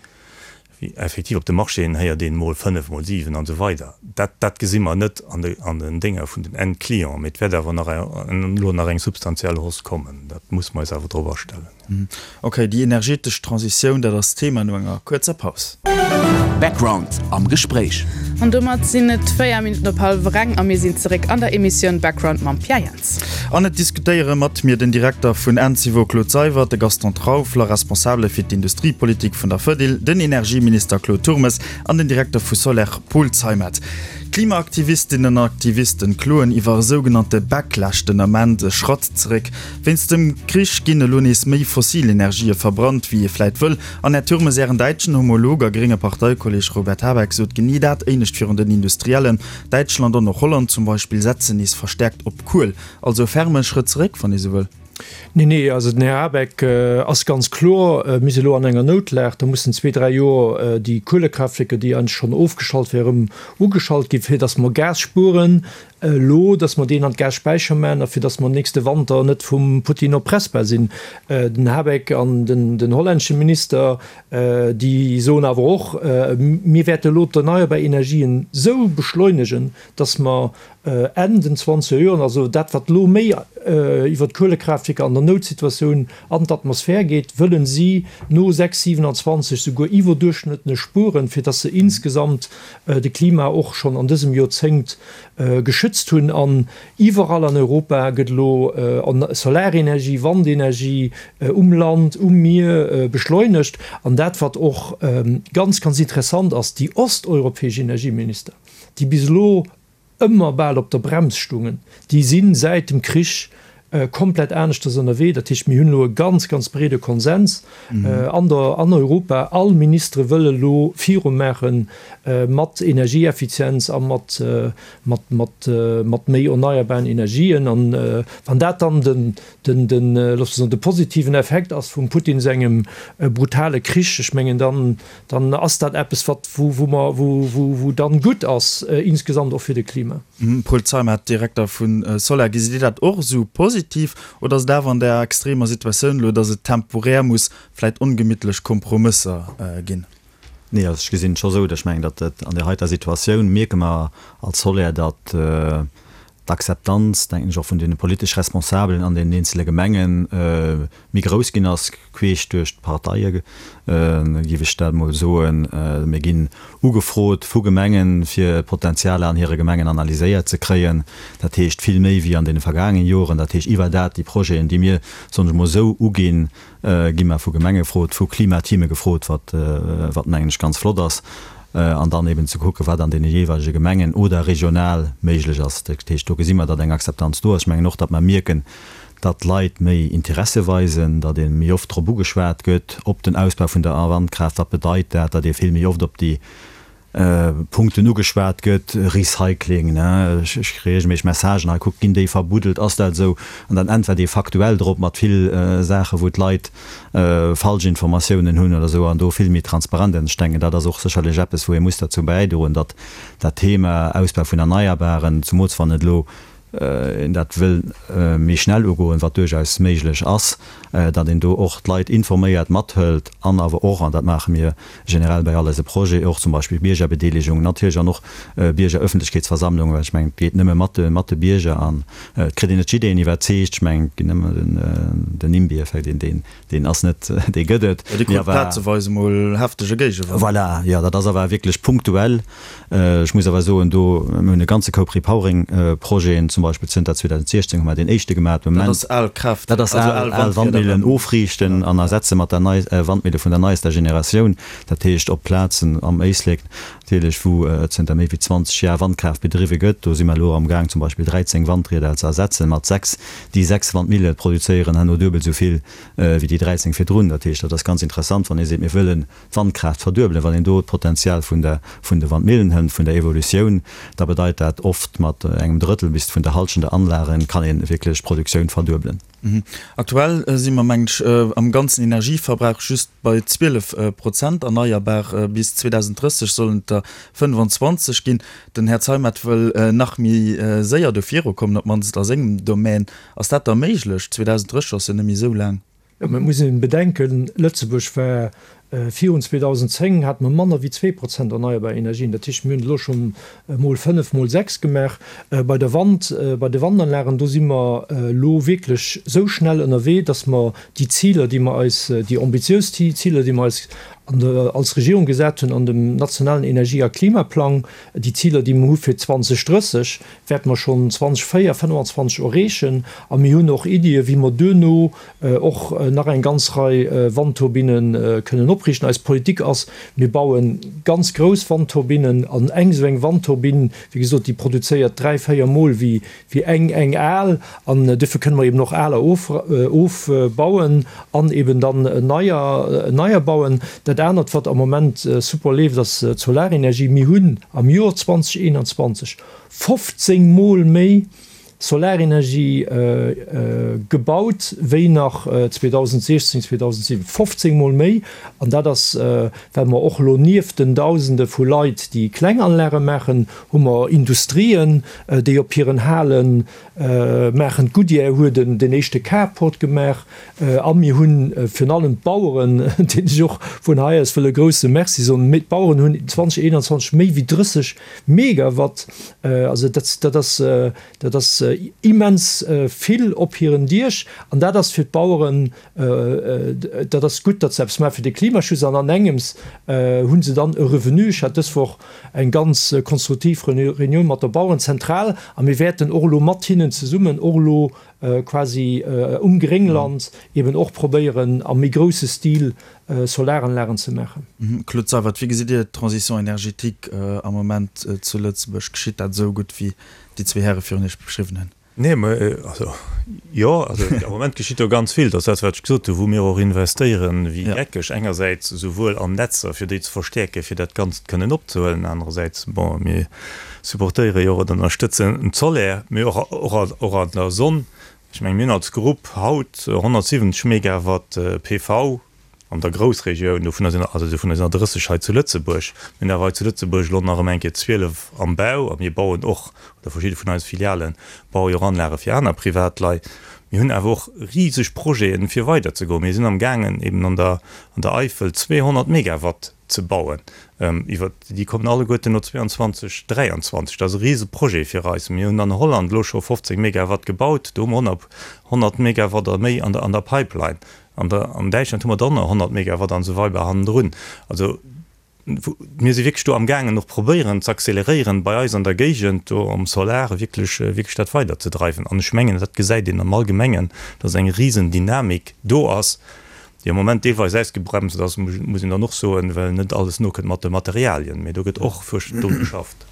wéi effektiv op de Marchéen héiert een, mol fënnef, mol siwen an esou weider. Dat, dat gesi mer net an de, an den Dénger vun den Endclienten. Mee et wäert awer nach elo nach eng substantiell Hausse kommen. Dat muss mer eis awer drop astellen. Ok, déi energetesch Transitioun, dat ass d'Thema no enger kuerzer Paus. Background am Gespréich. An domat sinn et 4 Minutten op hallwer eng a mir sinn zeréck an der Emissioun Background mam Pierre Jans. An et diskutéiere mat mir den Direkter vun Encevo Claude Seywert, de Gaston Trauffler, Responsabele fir d'Industriepolitik vun der Fedil, den Energieminister Claude Turmes an den Direkter vu Soler Paul Zeimet. Klimaaktivistinnen an Aktivisten kloen iwwer e sougenannte Backlash den Ament, e Schratt zeréck Wéinst dem Krich ginn elo nees méi fossil Energië verbrannt, wéi ee vläit wëll. An Här Turmes, Ären däitschen Homolog a grénge Parteikolleeg Robert Habeck sot genee dat éinescht virun den Industriellen. Däitschland an och Holland zum Beispill setzen nees verstäerkt op Kuel. Also e ferme Schrëtt zeréck, wann ee sou wëll. Nee, nee, also den Här Habeck ass ganz kloer, Mir si elo an enger Noutlag, da mussen zwee, dräi Joer déi Kuelekraaftwierker, déi eigentlech schonn ofgeschalt wären, erëm ugeschalt ginn, fir datt mer Gas spueren. Elo, datt mer deen an d'Gasspäicher maachen a fir datt mer nächste Wanter net vum Putin erpressbar sinn. Den Habeck an den hollännesche Minister, déi soen awer och, Mir wäerte elo d'erneierbar Energien esou beschleunegen, datt mer Enn den zwanzeger Joren, also dat wat elo méi iwwer d'Kuelekraaftwierker an der Noutsituatioun an d'Atmosphär geet, wëllen si no 6, 27 souguer iwwerduerchschnëttlech spueren, fir datt se insgesamt de Klima och schonn an dësem Joerzéngt geschützt hunn. An iwwerall an Europa gëtt elo Solarenergie, Wandenergie um Land, um Mier beschleunegt. An dat, wat och ganz, ganz interessant ass, déi osteuropäesch Energieminister, déi bis elo ëmmer bal op der Brems stungen, déi si säit dem Krich. komplett aneschters ënnerwee. Dat heescht, mir hunn elo e ganz, ganz breede Konsens an der, an Europa. All Ministere wëlle elo virumaache mat Energieeffizienz a mat, mat, mat, mat méi erneierbaren Energien. An wann dat dann den, den, den, loosse mer soen, de positiven Effekt ass vum Putin sengem brutale Krich, ech mengen, dann, dann ass dat eppes, wat, wou, wou mer, wou, wou, wou dann gutt ass insgesamt och fir de Klima. Paul Zeimet, Direkter vu Soler, Gesitt Dir dat och esou positiv oder ass et awer an där extremer Situatioun elo, datt et temporär muss vläit ongemittlech Kompromësser ginn? Nee, also ech gesinn et scho esou, datt ech mengen, datt et an där heiter Situatioun mierke mer als Soler, datt d'Akzeptanz, denken ech, och vun deene politesch Responsabelen an deenen eenzele Gemenge méi grouss ginn ass, queesch duerch d'Parteie géif ech dat emol soen. Mir ginn ugefrot vu Gemengen, fir Potenzialer an hire Gemengen analyséiert ze kréien. Dat heescht vill méi wéi an deene vergaangene Joren. Dat heescht iwwer dat, déi Projeten, déi mir, soen ech emol, esou uginn, gi mer vu Gemenge gefrot, vu Klimateame gefrot, wat, wat mengen ech ganz flott ass, an dann eben ze kucken, wat an deene jeeweilege Gemengen oder regional méiglech ass. Dat heescht, do gesi mer, datt eng Akzeptanz do ass. Ech mengen och, datt mer mierken, datt d'Leit méi Interesse weisen, datt ee méi oft drop ugeschwat gëtt, op den Ausbau vun der Wandkraaft, wat bedeit dat, datt ee vill méi oft op déi Punkten ugeschwat gëtt, Recycling, ne, ech kréie reegelméisseg Messagen, hei kuckt, ginn déi verbuddelt, ass dat esou? An dann äntwert ee faktuell drop mat vill Saachen, wou d'Leit falsch Informatiounen hunn oder esou, an do vill méi transparent. An ech denken, dat ass och sécherlech eppes, wou ee muss derzou bäidroen, datt dat Thema Ausbau vun Erneierbaren, zumools wann et elo een dat wëll méi schnell ugoen, wat duerchaus méiglech ass, datt een do och d'Leit informéiert, mathëlt an awer och, an dat maache mir generell bei all eise Projeten, och zum Beispill Biergerbedeelegung natierlech an och Biergerëffentlechkeetsversammlungen, well ech mengen, et geet nëmme mat de, mat de Bierger an et kritt een net jiddereen iwwerzeegt. Ech mengen, et ginn ëmmer den, den NIMBY-Effekt, deen, deen, Deen ass net, dee gëtt et. Jo, dee krut plazeweis emol heftege Géigewand. Voilà, jo, dat ass awer wierklech punktuell. Ech muss awer soen, do, mir hunn e ganze Koup Repowering-Projeten, zum Beispill zënter 2016 hu mer deen éischte gemaach. Dat ass al Kraaft, dat ass al Wandmillen ofriichten an ersetze mat der nei Wandmille vun der neiester Generatioun. Dat heescht op Plazen am Éislek natierlech, wou zënter méi wéi 20 Jar Wandkraaft bedriwwe gëtt. Do si mer elo amgaang zum Beispill 13 Wandrieder ze ersetzen mat 6. Déi 6 Wandmille produzéieren herno duebel esou vill wéi déi 13 virdrun. Dat heescht, dat ass ganz interessant, wann ee seet, mir wëllen d'Wandkraaft verduebelen. Wann een do d'Potenzial vun der, vun de Wandmillen hënt, vun der Evolutioun, da bedeit dat oft mat engem Drëttel bis vun der Halschent der Anlagen kann ee wierklech d'Produktioun verduebelen. Aktuell si mer, mengen ech, am ganzen Energieverbrauch just bei 12 Prozent erneierbar. Bis 2030 sollen et der 25 ginn. Den Här Zeimet wëll nach méi séier do virukommen, op d'mannst a sengem Domän. Ass dat da méiglech? 2030 ass jo net méi esou laang. Jo, mä et muss een bedenken, Lëtzebuerg war virun 2010, hate mer manner wéi 2% erneierbar Energien. Dat heescht, mir hunn et elo scho mol fënnef, mol sechs gemaach. Bei der Wand, bei de Wandanlagen, do si mer elo wierklech esou schnell ënnerwee, datt mer déi Ziler, déi mer eis, déi ambitiös Ziler, déi mer eis an der, als Regierung gesat hunn an dem nationalen Energie a Klimaplang, déi Ziler, déi mer hu fir 2030, wäerte mer schonn 2024, 2025 erreechen. A mir hunn och Iddien, wéi mer duerno och nach eng ganz Rei Wandturbinne kënnen opriichten. Eis Politik ass, mir baue ganz grouss Wandturbinnen. An eng esou eng Wandturbinn, wéi gesot, déi produzéiert dräi, véier Mol wéi wéi eng eng al, an duerfir kënne mer eben och aler ofbauen an eben dann neier neier bauen. Dat anert, wat am Moment super leeft, ass d'Solarenergie. Mir hunn am Joer 2021 15 Mol méi Solarenergie gebaut wéi nach 2016, 2007, 15 Mol méi! An dat ass, well mer och elo nieft den Dausende vu Leit, déi kleng Anlage maachen, hu mer Industrien, déi op hiren Hale maachen. D'Goodyear huet den éischte Carport gemaach. A mir hu virun allem d'Baueren, deenen ech och vun hei aus wëll e grouse Merci soen. D'Baueren hunn 2021 méi wéi 30 Megawatt, also dat ass, dat ass immens vill op hiren Diech. An dat ass fir d'Baueren Dat ass gutt, datt se eppes maache fir de Klimaschutz an an engems hu se dann e Revenu. Ech hat dës Woch eng ganz konstruktiv Reunioun mat der Bauerenzentral a mir wäerten och elo mat hinnen zesummen och elo quasi um Gréngland eben och probéieren am méi grousse Stil Solaranlagen ze maachen. Claude Seywert, wéi gesitt Dir d'Transition énergétique am Moment zu Lëtzebuerg? Geschitt dat esou gutt, wéi déi zwee Häre virun Iech beschriwwen hunn? Nee, mä also, jo, also am Moment geschitt do ganz vill. Dat ass dat, wat ech gesot hunn, wou mir och investéieren wéi geckeg. Engersäits esouwuel an Netzer, fir déi ze verstäerken, fir dat Ganzt kënnen opzehuelen, anerersäits, bon, mir supportéiere jo och oder ënnerstëtzen d'Solaire, mee och, och, och an der Sonn. Ech mengen, mir hunn als Grupp haut 170 Megawatt PV an der Groussregioun, dovunner sinn, also dovunner sinn der 30 hei zu Lëtzebuerg. Mir hunn awer hei zu Lëtzebuerg elo nach ëm eng Kéier 12 am Bau a mir bauen och, oder verschidde vun eise Filiale baue jo och Anlage fir aner Privatleit. Mir hunn awer och riseg Projeten, fir weiderzegoen. Mir sinn amgaangen, eben an der, an der Eifel 200 Megawatt ze bauen. Iwwer déi kommen alleguerten no 22, 23. Dat ass e rise Projet fir eis. Mir hunn an Holland elo scho 15 Megawatt gebaut. Do hu mer 100 Megawatt a méi an der Pipeline. An der an Däitschland hu mer dann nach 100 Megawatt an esou weider hannendrun. Also mir si wierklech do amgaangen och probéieren ze acceleréieren bei eis an der Géigend do am Solar wierklech wierklech dat weiderzedreiwen. An ech mengen, dat gesäit een am Allgemengen, dass eng Risendynamik do ass, déi am Moment deelweis ausgebremst ass, muss een dann och soen, well net alles nokënnt mat de Materialien. Mee do gëtt och fuersch dru geschafft.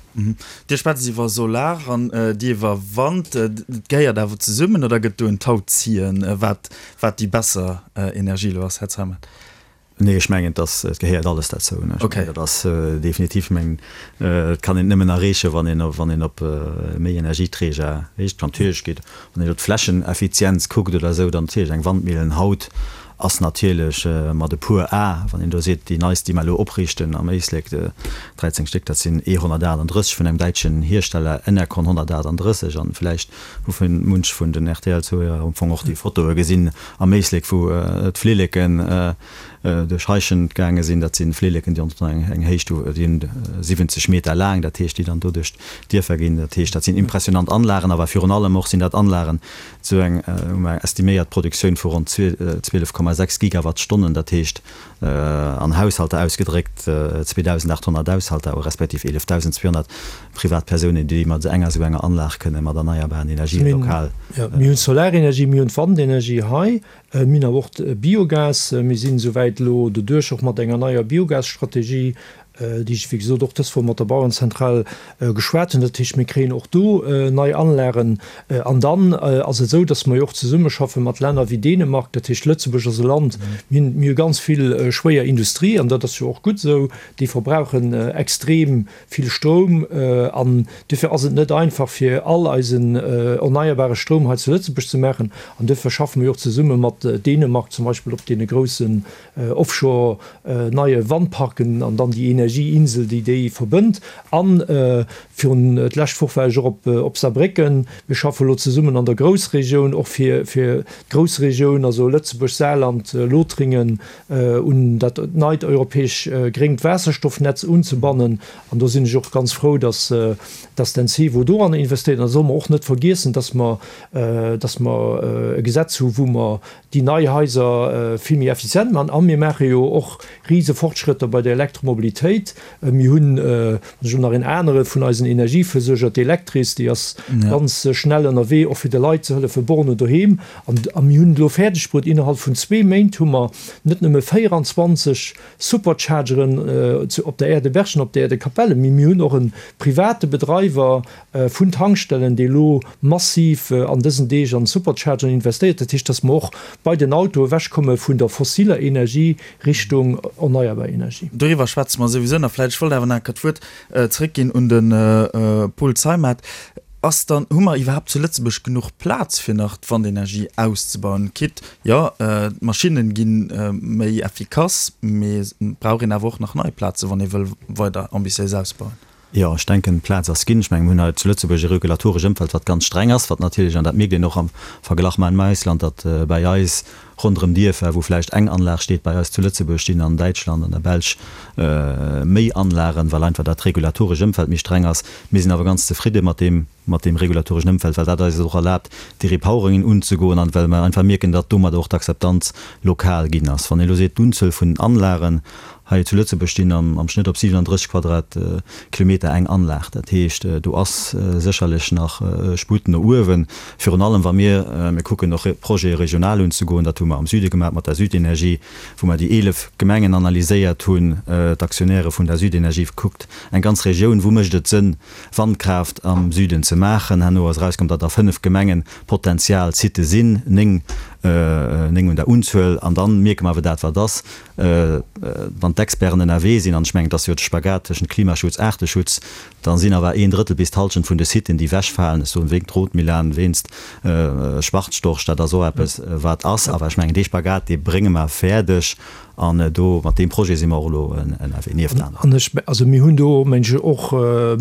Dir schwätzt iwwer Solar an Dir iwwer Wand. Et gehéiert awer zesummen oder gëtt do en Tauziehen, wat wat déi besser Energie elo ass, Här Zeimet? Nee, ech mengen, dass et gehéiert alles derzou. Ech mengen, dat ass definitiv, ech mengen, et kann een et nëmmen erreechen, wann een, wann een op méi Energieträger heescht. Natierlech geet, wann een elo d'Flächeneffizienz kuckt oder esou, dann natierlech eng Wandmillen haut ass natierlech mat e puer A, wann een do seet, déi neist, déi mer elo opriichten am Éislek, 13 Stéck, dat sinn E 138 vun engem däitschen Hiersteller, Enercon 138, an vläicht hu munch vun den RTL-Zuhörer am Fong och déi Fotoe gesinn am Éislek, wou d'Flilleken duerch Heischent gaange sinn. Dat si Flilleken, déi eng Héicht hu, déi hunn 70 Meter laang, dat heescht, déi dann do duerch d'Dierfer ginn. Dat heescht, dat sinn impressionant Anlagen, awer virun allem och sinn dat Anlagen, Esou eng hu mer eng estiméiert Produktioun vu ronn 12,6 Gigawattstonnen, dat heescht an Haushalter ausgedréckt 2.800 Haushalter respektiv 11.200 Privatpersounen, déi mat enger esou enger Anlag kënne mat erneierbaren Energien lokal. Mir hunn d'Solarenergie, mir hunn d'Wandenergie hei, mir hunn awer och d'Biogas. Mir sinn esouwäit elo doduerch och mat enger neier Biogasstrategie déi ech wéi gesot och dës Woch mat der Bauerenzentral geschwat hunn. Dat heescht, mir kréien och do nei Anlagen. An dann ass et esou, datt mer jo och zesummeschaffe mat Länner wéi Dänemark. Dat heescht, Lëtzebuerg ass e Land, mir hunn, mir hu ganz vill schwéier Industrie, an dat ass jo och gutt esou, déi verbrauchen extrem vill Stroum. An duerfir ass et net einfach, fir all eisen erneierbare Stroum hei zu Lëtzebuerg ze maachen. An duerfir schaffe mer jo och zesumme mat Dänemark zum Beispill op deene groussen Offshore neie Wandparken an dann déi Energieinsel, déi déi verbënnt. An virun d'lescht Woch war ech och op op Saarbrécken. Mir schaffe elo zesummen an der Groussregioun, och fir fir d'Groussregioun, also Lëtzebuerg, Saarland, Lothringen, un dat neit europäesch gréngt Waasserstoffnetz unzebannen. An do sinn ech och ganz frou, dass dass d'Encevo doranner investéiert. An da solle mer och net vergiessen, dass mer dass mer e Gesetz hu wou mer déi nei Haiser vill méi effizient maachen. A mir maache jo och rise Fortschrëtter bei der Elektromobilitéit. Mir hunn, wann ech elo nach een anere vun eisen Energieversuerger, d'Electris, déi ass ganz schnell ënnerwee, och fir de Leit ze hëllefen, Bornen doheem. An mir hunn et elo fäerdegbruet, innerhalb vun zwee Méint hu mer net nëmme 24 Superchargeren op der Aire de Berchem an op der Aire de Capellen, mee mir hunn och e private Bedreiwer, vun Tankstellen, déi elo massiv an dësen Deeg an Superchargeren investéiert. Dat heescht, dass mer och bei den Autoe ewechkomme vun der fossiler Energie Richtung erneierbar Energie. Doriwwer schwätze mer souwisou nach vläicht. Ech wollt awer nach eng Kéier d'Wuert zréckginn un de Paul Zeimet. Ass dann, hu mer iwwerhaapt zu Lëtzebuerg genuch Plaz, fir nach d'Wandenergie auszebauen? Quitte, jo, d'Maschinne gi méi effikass, mee et brauch een awer och nach nei Plazen, wann ee wëll weider ambitiéis ausbauen. Jo, ech denken, d'Plaz ass ginn. Ech mengen, mir hunn hei zu Lëtzebuerg e regulatoresch Ëmfeld, wat ganz streng ass, wat natierlech, an dat mierkt een och am Verglach mam Ausland, datt bäi eis ronderëm Dierfer, wou vläicht eng Anlag steet, bei eis zu Lëtzebuerg stinn an Däitschland, an der Belsch méi Anlagen, well einfach dat regulatoresch Ëmfeld méi streng ass. Mir sinn awer ganz zefridde mat deem, mat deem regulatoreschen Ëmfeld, well dat eis et och erlaabt, déi Repoweringen unzegoen an well mer einfach mierken, datt domadder och d'Akzeptanz lokal ginn ass. Wann ee elo seet, d'Unzuel vun den Anlagen, Hei zu Lëtzebuerg stinn am Schnëtt op 37 Quadratkilometer eng Anlag. Dat heescht, do ass sécherlech nach Sputt no uewen. Virun allem wa mir, mir kucken och Projete regional unzegoen, dat hu mer. mer am Süde gemaach mat der Südenergie, wou mer déi 11 Gemengen analyséiert hunn, d'Aktionäre vun der Südenergie gekuckt, eng ganz Regioun, wou mécht et Sënn, Wandkraaft am Süden ze maachen. Herno ass erauskomm, datt a 5 Gemengen Potenzial Sitte sinn, 9, 9 un der Unzuel. An dann mierke mer awer dat, wat ass, wann d'Experten ënnerwee sinn, an ech mengen, et ass jo de Spagat tëschent Klimaschutz, Aarteschutz, da sinn awer een Drëttel bis d'Hallschent vun de Siten, déi wechfalen, ech soen wéinst Rotmilan, wéinst Schwarzstorch, dat ass och eppes, wat ass. Awer ech mengen, dee Spagat, dee brénge mer fäerdeg. An do, mat deem Projet si mer och elo ënnerwee, nieft aneren. An ech, also mir hunn do, meng ech, och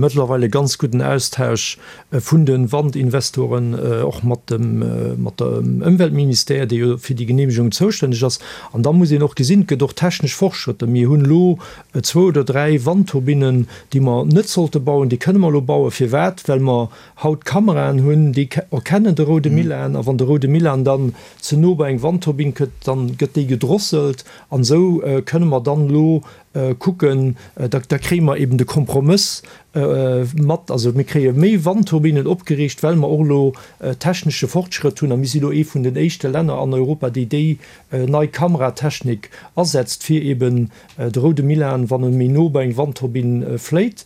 mëttlerweil e ganz gudden Austausch vun de Wandinvestoren, och mat dem, mat dem Ëmweltministère, dee jo fir déi Genehmegung zoustänneg ass. An da muss een och gesinn, et gëtt och technesch Fortschrëtter. Mir hunn elo zwou oder dräi Wandturbinnen, déi mer net sollte bauen, déi kënne mer elo bauen. Firwat? Well mer haut Kameraen hunn, déi erkennen de roude Milan. A wann de roude Milan dann ze no bei eng Wandturbinn kënnt, dann gëtt déi gedrosselt an esou kënne mer dann elo kucken, da da kréie mer eben de Kompromëss mat, also mir kréie méi Wandturbinnen opgeriicht, well mer och elo technesche Fortschrëtt hunn a mir si elo ee vun den éischte Länner an Europa, déi déi nei Kameratechnik asetzt, fir eben de roude Milan, wann e méi no bei eng Wandturbinn fléit,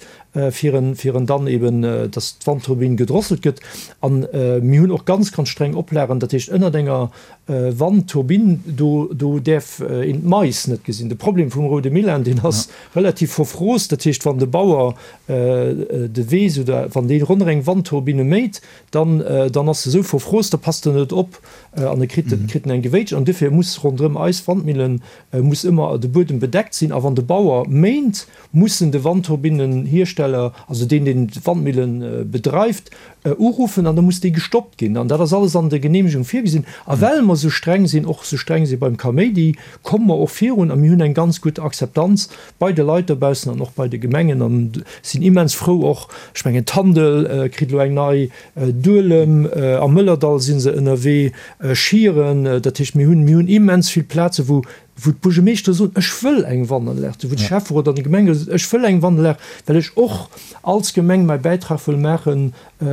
fir en fir en dann eben, dass d'Wandturbinn gedrosselt gëtt. An mir hunn och ganz, ganz streng Oplagen, dat heescht ënnert enger Wandturbinn, do do däerf een d'Mais net gesinn. De Problem vum roude Milan, deen ass relativ verfroost, dat heescht wann de Bauer de Weess oder wann dee ronderëm eng Wandturbinne méit, dann dann ass e sou verfroost, da passt en net op an e kritt kritt en eng Gewéitsch. An dofir muss ronderëm eis Wandmillen muss ëmmer de Buedem bedeckt sinn. A wann de Bauer méint, mussen de Wandturbinnenhiersteller, also deen, deen d'Wandmillen bedreift, uruffen an da muss déi gestoppt ginn. An dat ass alles an der Genehmegung virgesinn. A well mer esou streng sinn, och esou streng si beim Kaméidi, komme mer och virun a mir hunn eng ganz gutt Akzeptanz bei de Leit dobaussen an och bei de Gemengen an sinn immens frou och, ech mengen Tandel kritt elo eng nei, Duelem, am Mëllerdall si se ënnerwee, Schieren, dat heescht mir hunn, mir hunn immens vill Plaze wou wou d'Buergermeeschtere soen, ech wëll eng Wandanlag, wou de Schäfferot an de Gemengerot soen, ech wëll eng Wandanlag, well ech och als Gemeng mäi Bäitrag wëll maache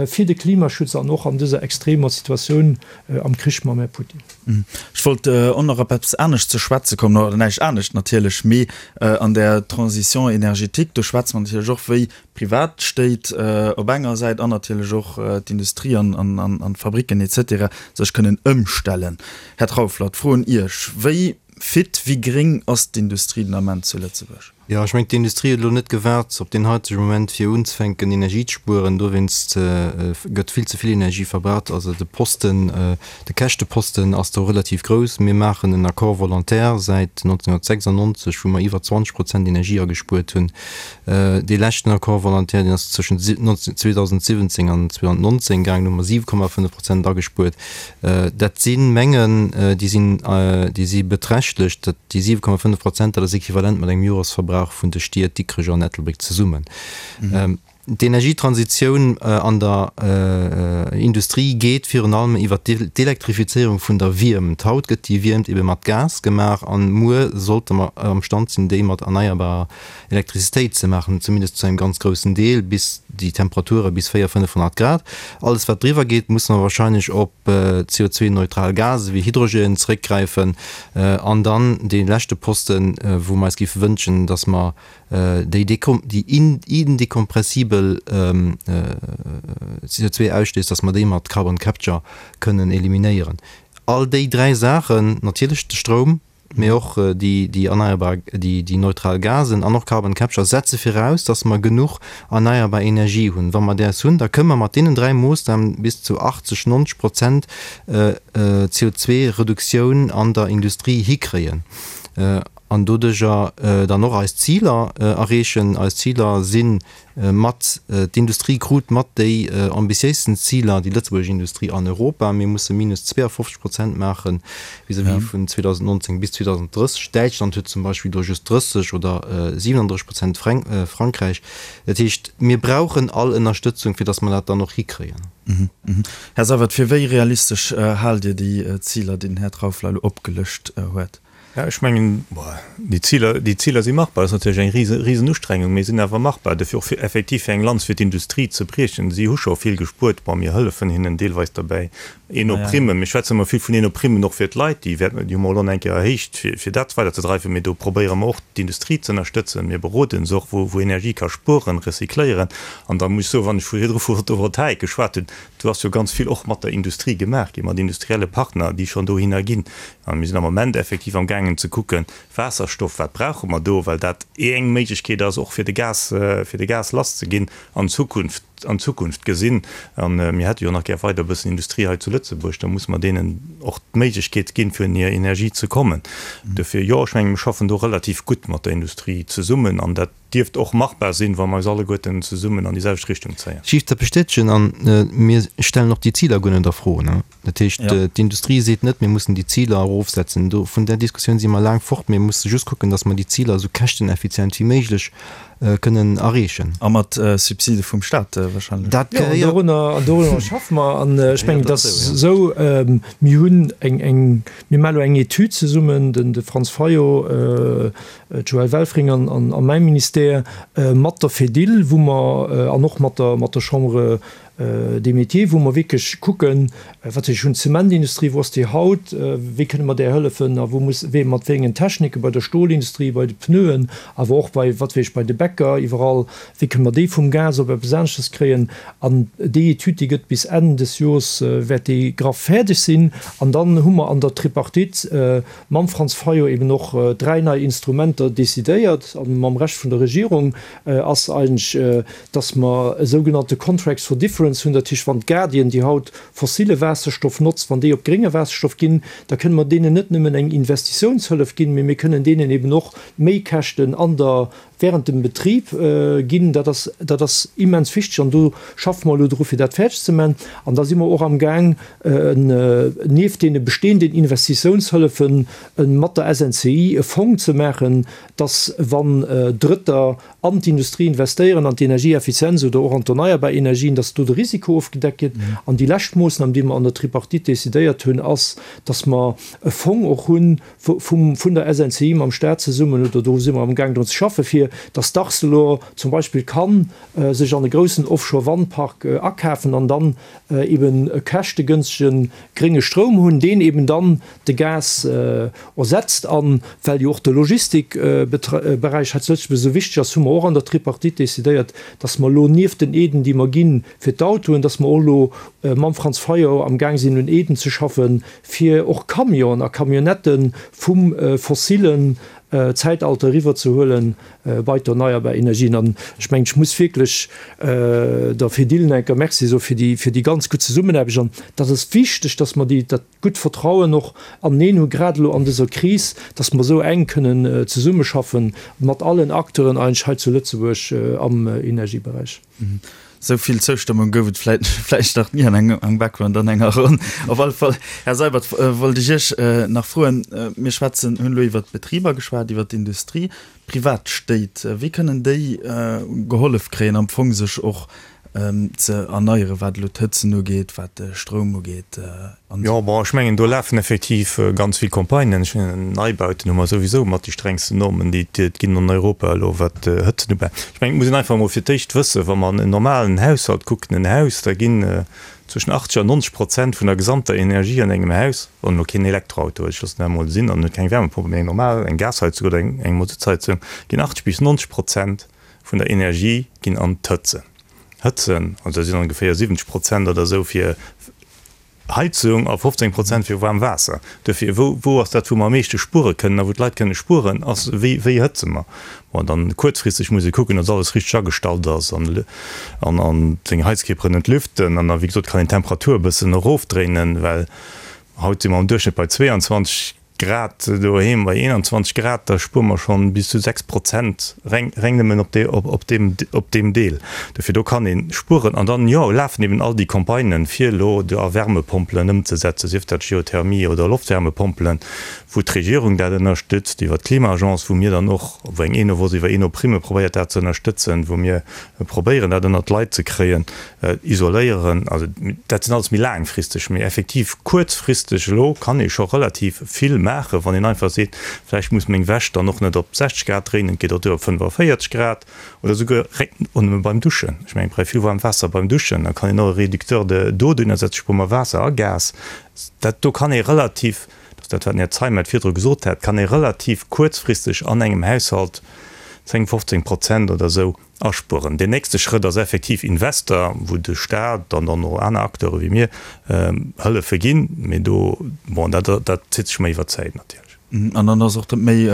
fir de Klimaschutz an och an dëser extremer Situatioun am Krich mam Här Putin. Ech wollt och nach op eppes anescht ze schwätze kommen, oder näischt anescht natierlech, mee an där Transition énergétique, do schwätze mer natierlech och, wéi Privatstéit op enger Säit an natierlech och d'Industrie an d'Fabricken etc. Sech kënnen ëmstellen. Här Trauffler, d'Fro un Iech, Wéi fit, wéi gréng ass d'Industrie den Ament zu Lëtzebuerg? Jo, ech mengen, d'Industrie huet elo net gewaart op deen haitege Moment, fir unzefänken Energie ze spueren. Dowéinst gëtt vill ze vill Energie verbraucht. Also de Posten, de Käschteposten ass do relativ grouss. Mir maachen en Accord volontaire säit 1996, wou mer iwwer 20 Prozent Energie agespuert hunn. Dee leschten Accord volontaire, deen ass tëschent 2017 an 2019 gaangen, do hu mer 7,5 Prozent agespuert. Dat si Mengen, déi sinn, déi si beträchtlech. Dat, déi 7,5 Prozent, dat ass equivalent mat engem Joresverbrauch vun de Stied Dikrech an Ettelbréck zesummen. D'Energietransitioun an der Industrie geet virun allem iwwer d'Elektrifizéierung vun der Wiermt. Haut gëtt déi Wiermt ebe mat Gas gemaach an muer sollte mer amstand sinn, déi mat erneierbarer Elektrizitéit ze maachen, zumindest zu engem ganz groussen Deel, bis déi Temperature bis 400, 500 Grad. Alles wat driwwer geet, musse mer wahrscheinlech op CO2-neutral Gase wéi Hydrogen zeréckgräifen. An dann dee leschte Posten, wou mer eis géife wënschen, datt mer déi indekompressibel CO2-Ausstéiss, datt mer déi mat Carbon Capture kënnen eliminéieren. All déi dräi Saachen, natierlech de Stroum, mee och déi erneierbar, déi neutral Gasen an och Carbon Capture setze viraus, datt mer genuch erneierbar Energie hunn. Wa mer däers hunn, da kënne mer mat deenen dräi Moossnamen bis zu 80, 90 Prozent CO2-Reduktioun an der Industrie hikréien an doduerjer dann och eis Ziler erreechen. Eis Ziler si Mat, d'Industrie krut mat déi ambitiéisten Ziler, déi lëtzebuergesch Industrie an Europa. Mir musse minus 52 Prozent maache vis-à-vis vun 2019 bis 2030. Däitschland huet zum Beispill do just 30 oder 37 Prozent, Frankräich. Dat heescht, mir brauchen all Ënnerstëtzung, fir datt mer dat dann och hikréien. Här Seywert, fir wéi realistesch haalt Dir déi Ziler, déi den Här Trauffler elo opgelëscht huet? Jo, ech mengen, déi Ziler, déi Ziler si machbar. Dat ass natierlech eng rise, risen Ustrengung, mee sinn awer machbar. Dofir och fir effektiv fir eng Lanz fir d'Industrie ze briechen. Si hu scho vill gespuert. Bon, mir hëllefen hinnen deelweis derbäi. Eno-Primmen, mir schwätzen ëmmer vill vun Eno-Primmen och fir d'Leit, déi wäerten, déi hu mer elo nach eng Kéier erhéicht, fir, fir dat weiderzedreiwen. Mee do probéiere mer och d'Industrie ze ënnerstëtzen. Mir beroden se och, wou, wou Energie ka spueren, recycléieren. An da muss ech soen, wann ech vu virdru vu Photovoltaik geschwat hunn, do ass jo ganz vill och mat der Industrie gemaach ginn, mat industrielle Partner, déi schonn dohinner ginn. A mir sinn am Moment effektiv am gaangen ze kucken, Waasserstoff, wat brauche mer do, well dat eng Méiglechkeet ass och fir de Gas, fir de Gas lasszeginn an Zukunft, an Zukunft gesinn. A mir hätte jo nach gär weider e bëssen Industrie hei zu Lëtzebuerg, da musse mer deenen och d'Méiglechkeet ginn, fir un hir Energie ze kommen. Dofir, jo, ech menge mir schaffen do relativ gutt mat der Industrie zesummen an dat dierft och machbar sinn, wa mer eis alleguerten zesummen an déi selwecht Richtung zéien. Ech géif dat bestätegen an mir stellen och déi Ziler guer net a Fro. Dat heescht, d'Industrie seet net, mir mussen déi Ziler erofsetzen. Do, vun där Diskussioun si mer laang fort. Mir musse just kucken, datt mer déi Ziler esou käschteneffizient wéi méiglech kënnen erreechen. A mat Subside vum Staat wahrscheinlech. Dat gehéiert. Jo, an dorunner schaffe mer. An ech mengen, et ass esou, mir hunn eng, eng, mir maache elo eng Etüd zesummen, den de Franz Fayot, d'Joëlle Welfring an, an mäi Ministère, mat der Fedil, wou mer, an och mat der, mat der Chambre des Métiers, wou mer wierklech kucken, wat ech hunn, d'Zementindustrie, wou ass déi haut, wéi kënne mer där hëllefen a wou muss, wéi, mat wéi engen Technike bei der Stolindustrie, bei de Pneuen, awer och bei, wat weess ech, bei de Bäcker, iwwerall, wéi kënne mer déi vum Gas op eppes aneschters kréien. An déi Etüd, déi gëtt bis Enn des Jors, wäert déi graff fäerdeg sinn. An dann hu mer an der Tripartite mam Franz Fayot eben och dräi nei Instrumenter decidéiert, a mam Rescht vun der Regierung ass eigentlech, dass mer e sougenannte Contracts for Difference hunn, dat heescht, wann d'Guardian, déi haut fossile Waasserstoff notzt, wann déi op grénge Waasserstoff ginn, da kënne mer deenen net nëmmen eng Investitiounshëllef ginn, mee mir kënnen deenen eben och Méikäschten an der, während dem Betrib ginn. Dat ass, dat ass immens wichteg an do schaffe mer elo dru fir dat fäerdeg ze man. An da si mer och amgaang, nieft deene bestehenden Investitiounshëllefen mat der SNCI e Fong ze maachen, dass wann Drëtter an d'Industrie investéieren, an d'Energieeffizienz oder och an d'erneierbar Energien, dass do de Risiko ofgedeckt gëtt. An déi lescht Moossnam, déi mer an der Tripartite decidéiert hunn, ass, dass mer e Fong och hu vum, vun der SNCI mam Stat zesummen, oder do si mer amgaang drun ze schaffen, fir dass d'Arcelor zum Beispill ka sech an e groussen Offshore-Wandpark akafen an dann eben e käschtegënstege grénge Stroum hunn, deen eben dann de Gas ersetzt. A well jo och de Logistikberäich hei zu Lëtzebuerg esou wichteg ass, hu mer och an der Tripartite decidéiert, dass mer elo nieft den Aiden, déi mer gi fir d'Autoen, dass mer och elo mam Franz Fayot amgaang sinn un Aiden ze schaffen, fir och Camionen a Camionnettë vum fossilen Zäitalter eriwwerzehuele bei d'erneierbar Energien. An ech mengen, ech muss wierklech der Fedil enker Merci soe fir déi, fir déi ganz gutt Zesummenaarbecht. An dat ass wichteg, dass mer déi, dat gutt Vertrauen och aneneen hu grad elo an dëser Kris, dass mer esou enk kënnen zesummeschaffe mat allen Acteuren eigentlech hei zu Lëtzebuerg am Energieberäich. Esou vill Zoustëmmung gouf et vläit vläicht nach ni an engem Background an enger Ronn. Op alle Fall, Här Seibert, wollt ech Iech nach froen, mir schwätzen, hunn elo iwwert d'Betriber geschwat, iwwert d'Industrie, privat Stéit, wéi kënnen déi gehollef kréien, am Fong sech och ze erneieren, wat elo d'Hëtzen ugeet, wat de Stroum ugeet an esou. Jo, bon, ech mengen, do lafen effektiv ganz vill Campagnen. Ech mengen, Neibauten hu mer souwisou mat déi strengsten Normen, déi et ginn an Europa elo, wat d'Hëtzen ubelaangt. Ech mengen, et muss een einfach emol fir d'éischt wëssen, wa mer an en normalen Haushalt kucken, en Haus, da ginn zwëschen 80 an 90 Prozent vun der gesamter Energie an engem Haus, wann elo keen Elektroauto huet, ech loossen dat emol sinn, an huet keng Wärmepompe, mee eng normal, eng Gasheizung oder eng Masutsheizung, ginn 80 bis 90 Prozent vun der Energie ginn an d'Hëtzen. Hëtzen, also dat sinn ongeféier 70 Prozent oder esou fir Heizung a 15 Prozent fir waarm Waasser. Dofir, wou, wou ass dat, wou mer am meeschte spuere kënnen a wou d'Leit kënne spueren, ass, wéi, wéi hëtze mer? Bon, dann kuerzfristeg muss ee kucken, datt alles richteg agestallt ass an, an, an seng Heizkierperen entlüften. An da, wéi gesot, kann een d'Temperatur e bëssen erofdréinen, well haut si mer am Duerchschnëtt bei 22. Grad doheem bei 21 Grad, da spuere mer schonn bis zu 6 Prozent reng, reng nëmmen op dee, op, op deem, op deem Deel. Dofir, do kann ee spueren. An dann, jo, lafen eben all déi Campagnen, fir elo do a Wärmepompelen ëmzesetzen, sief dat Geothermie oder Loftwärmepompelen, wou d'Regierung dat ënnerstützt iwwer d'Klima-Agence, wou mir dann och, wou eng Enovos iwwer Enoprimme probéiert dat ze ënnerstëtzen, wou mir probéieren dat ënnert d'Leit ze kréien. Isoléieren, also dat sinn alles méi laangfristeg, mee effektiv kuerzfristeg elo kann ee scho relativ vill maachen. maachen, wann een einfach seet, vläicht muss meng Wäsch dann och net op 60 Grad dréinen, et geet och duer op 45 Grad oder souguer réck och nëmme beim Duschen. Ech mengen, et brauch vill waarmt Waasser beim Duschen, da kann een och e Réducteur de d'eau dohinner setzen, spuere mer Waasser a Gas. Dat do kann ee relativ, dat ass dat, wat den Här Zeimet virdru gesot hat, kann ee relativ kuerzfristeg an engem Haushalt 10, 15 Prozent oder esou Aspueren. Deen nächste Schrëtt ass effektiv Invester, wou de Staat an dann och aner Acteure wéi mir hëllefe ginn. Mee do, bon, dat dat zitt sech méi iwwer d'Zäit natierlech. An dann ass och dat méi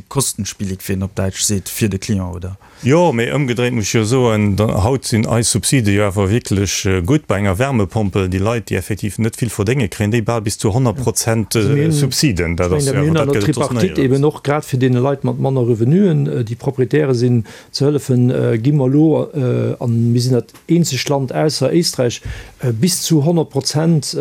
kostenspielig, wéi een op Däitsch seet, fir de Client, oder? Jo, mee ëmgedréit muss ech jo soen, haut sinn eis Subside jo awer wierklech gutt. Bei enger Wärmepompel, déi Leit, déi effektiv net vill verdéngen, kréien déi bal bis zu 100 Prozent Subsiden. Dat ass jo awer, dat gëtt et soss néierens. Tripartite eben och grad fir deene Leit mat manner Revenuen, déi Proprietäre sinn, Ze hëllefen, gi mer elo, a mir sinn dat eenzegt Land ausser Éisträich, bis zu 100 Prozent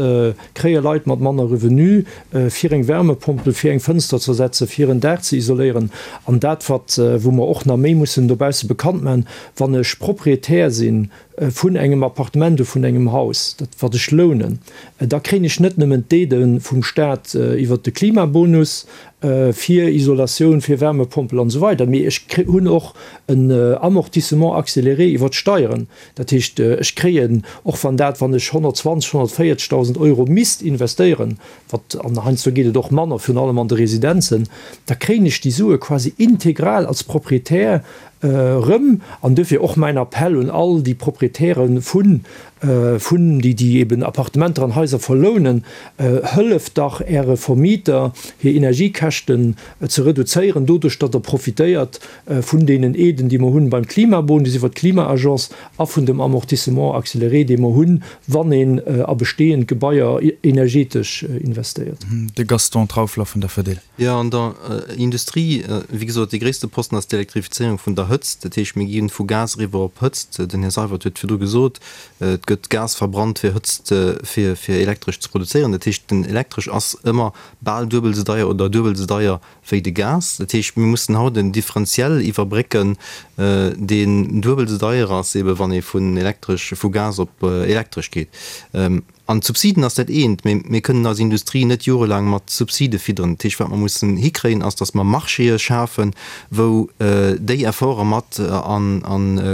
kréie Leit mat manner Revenu, fir eng Wärmepompel, fir eng Fënster ze ersetzen, fir en Daach ze isoléieren. An dat, wat, wou mer och nach méi mussen dobausse bekannt maachen, Wann ech Proprietär sinn vun engem Appartement oder vun engem Haus, dat wat ech lounen, da kréien ech net nëmmen d'Aidë vum Staat iwwert de Klimabonus fir Isolatioun, fir Wärmepompel an esou weider, mee ech hunn och en Amortissement accéléré iwwert d'Steieren. Dat heescht, ech kréien, och wann dat, wann ech 120, 140.000 Euro misst investéieren, wat, an heiansdo geet et och manner, virun allem an de Residenzen, da kréien ech déi Sue quasi integral als Proprietär Erëm, an duerfir och mäin Appell un all déi Proprietäre vun, vun, déi, déi eben Appartementer an Haiser verlounen, Hëlleft dach Äre Vermieter, hir Energiekäschten ze reduzéieren, doduerch datt Der profitéiert vun deenen Aiden, déi mer hunn beim Klimabonus iwwert d'Klima-Agence a vun dem Amortissement accéléré, dee mer hunn, wann een a bestehend Gebaier energetesch investéiert. De Gaston Trauffler vun der Fedil. Jo, an der Industrie, wéi gesot, dee gréisste Posten ass d'Elektrifizéierung vun der Hëtzt. Dat heescht, mir gi vu Gas eriwwer op Hëtzt. Den Här Seywert huet virdru gesot, et gëtt Gas verbrannt, fir Hëtzt, fir Elektresch ze produzéieren. Dat heescht, den Elektresch ass ëmmer bal duebel esou deier oder duebel esou deier wéi de Gas. Dat heescht, mir mussen haut en Differentiel iwwerbrécken, deen duebel esou deier ass, eebe wann ee vun Elektresch, vu Gas op Elektresch geet. An d'Subsiden ass dat eent, mee mir kënnen eis Industrie net jorelaang mat Subside fidderen. Dat heescht, wat mer mussen hikréien, ass, datt mer Marchéë schafen, wou déi Efforte mat a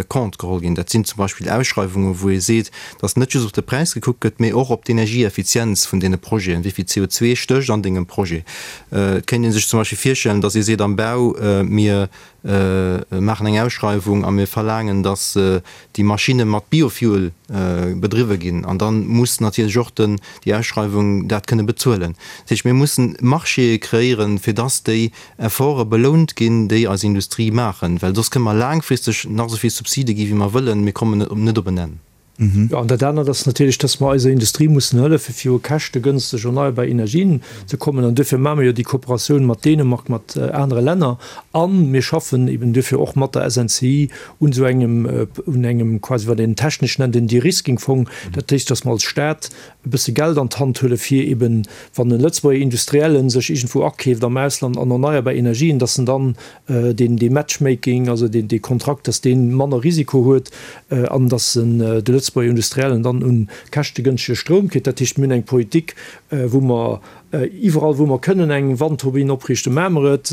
Compte geholl ginn. Dat sinn zum Beispill Ausschreiwungen, wou ee seet, datt net just op de Präis gekuckt gëtt, mee och op d'Energieeffizienz vun deene Projeten, wéi vill CO2 stécht an dengem Projet. Et kéint ee sech zum Beispill virstellen, datt ee seet am Bau, mir maachen eng Ausschreiwung a mir verlaangen, datt déi Maschinne mat Biofuel bedriwwe ginn. An da muss natierlech och den, déi Ausschreiwung dat kënne bezuelen. Dat heescht, mir mussen Marchéë kreéieren, fir datt déi Efforte belount ginn, déi eis Industrie maachen, well soss kënne mer laangfristeg nach esou vill Subside gi wéi mer wëllen, mir kommen net op en Enn. Jo, an dat anert ass natierlech, dass mer eiser Industrie mussen hëllefen, fir u käschtegënsteg erneierbar Energien ze kommen. An duerfir maache mer jo déi Kooperatioun mat Dänemark, mat anere Länner. A mir schaffen eben duerfir och mat der SNCI un esou engem, un engem quasi, wat een technesch nennt, en De-Risking-Fong. Dat heescht, dass mer als Stat e bësse Geld an d'Hand huelen, fir eben, wann e Lëtzebuerger Industrielle sech iergendwou akeeft am Ausland an erneierbar Energien, dass en dann deen dee Matchmaking, also deen dee Kontrakt, dass dee manner Risiko huet an dass en de Lëtzebuerger Industriellen dann un käschtegënschtege Stroum kritt. Dat heescht, mir hunn eng Politik, wou mer iwwerall, wou mer kënnen eng Wandturbinn opriichten, maache mer et.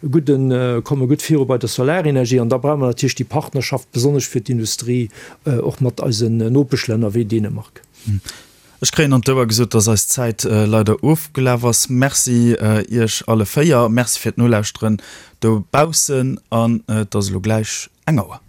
Gudden, komme gutt viru bei der Solarenergie. An da brauche mer natierlech déi Partnerschaft, besonnesch fir d'Industrie, och mat eisen Nopeschlänner wéi Dänemark. Ech kréien an d'Ouer gesot, dass eis Zäit leider ofgelaf ass. Merci Iech alle 4. Merci fir d'Nolauschteren dobaussen an et ass elo gläich eng Auer.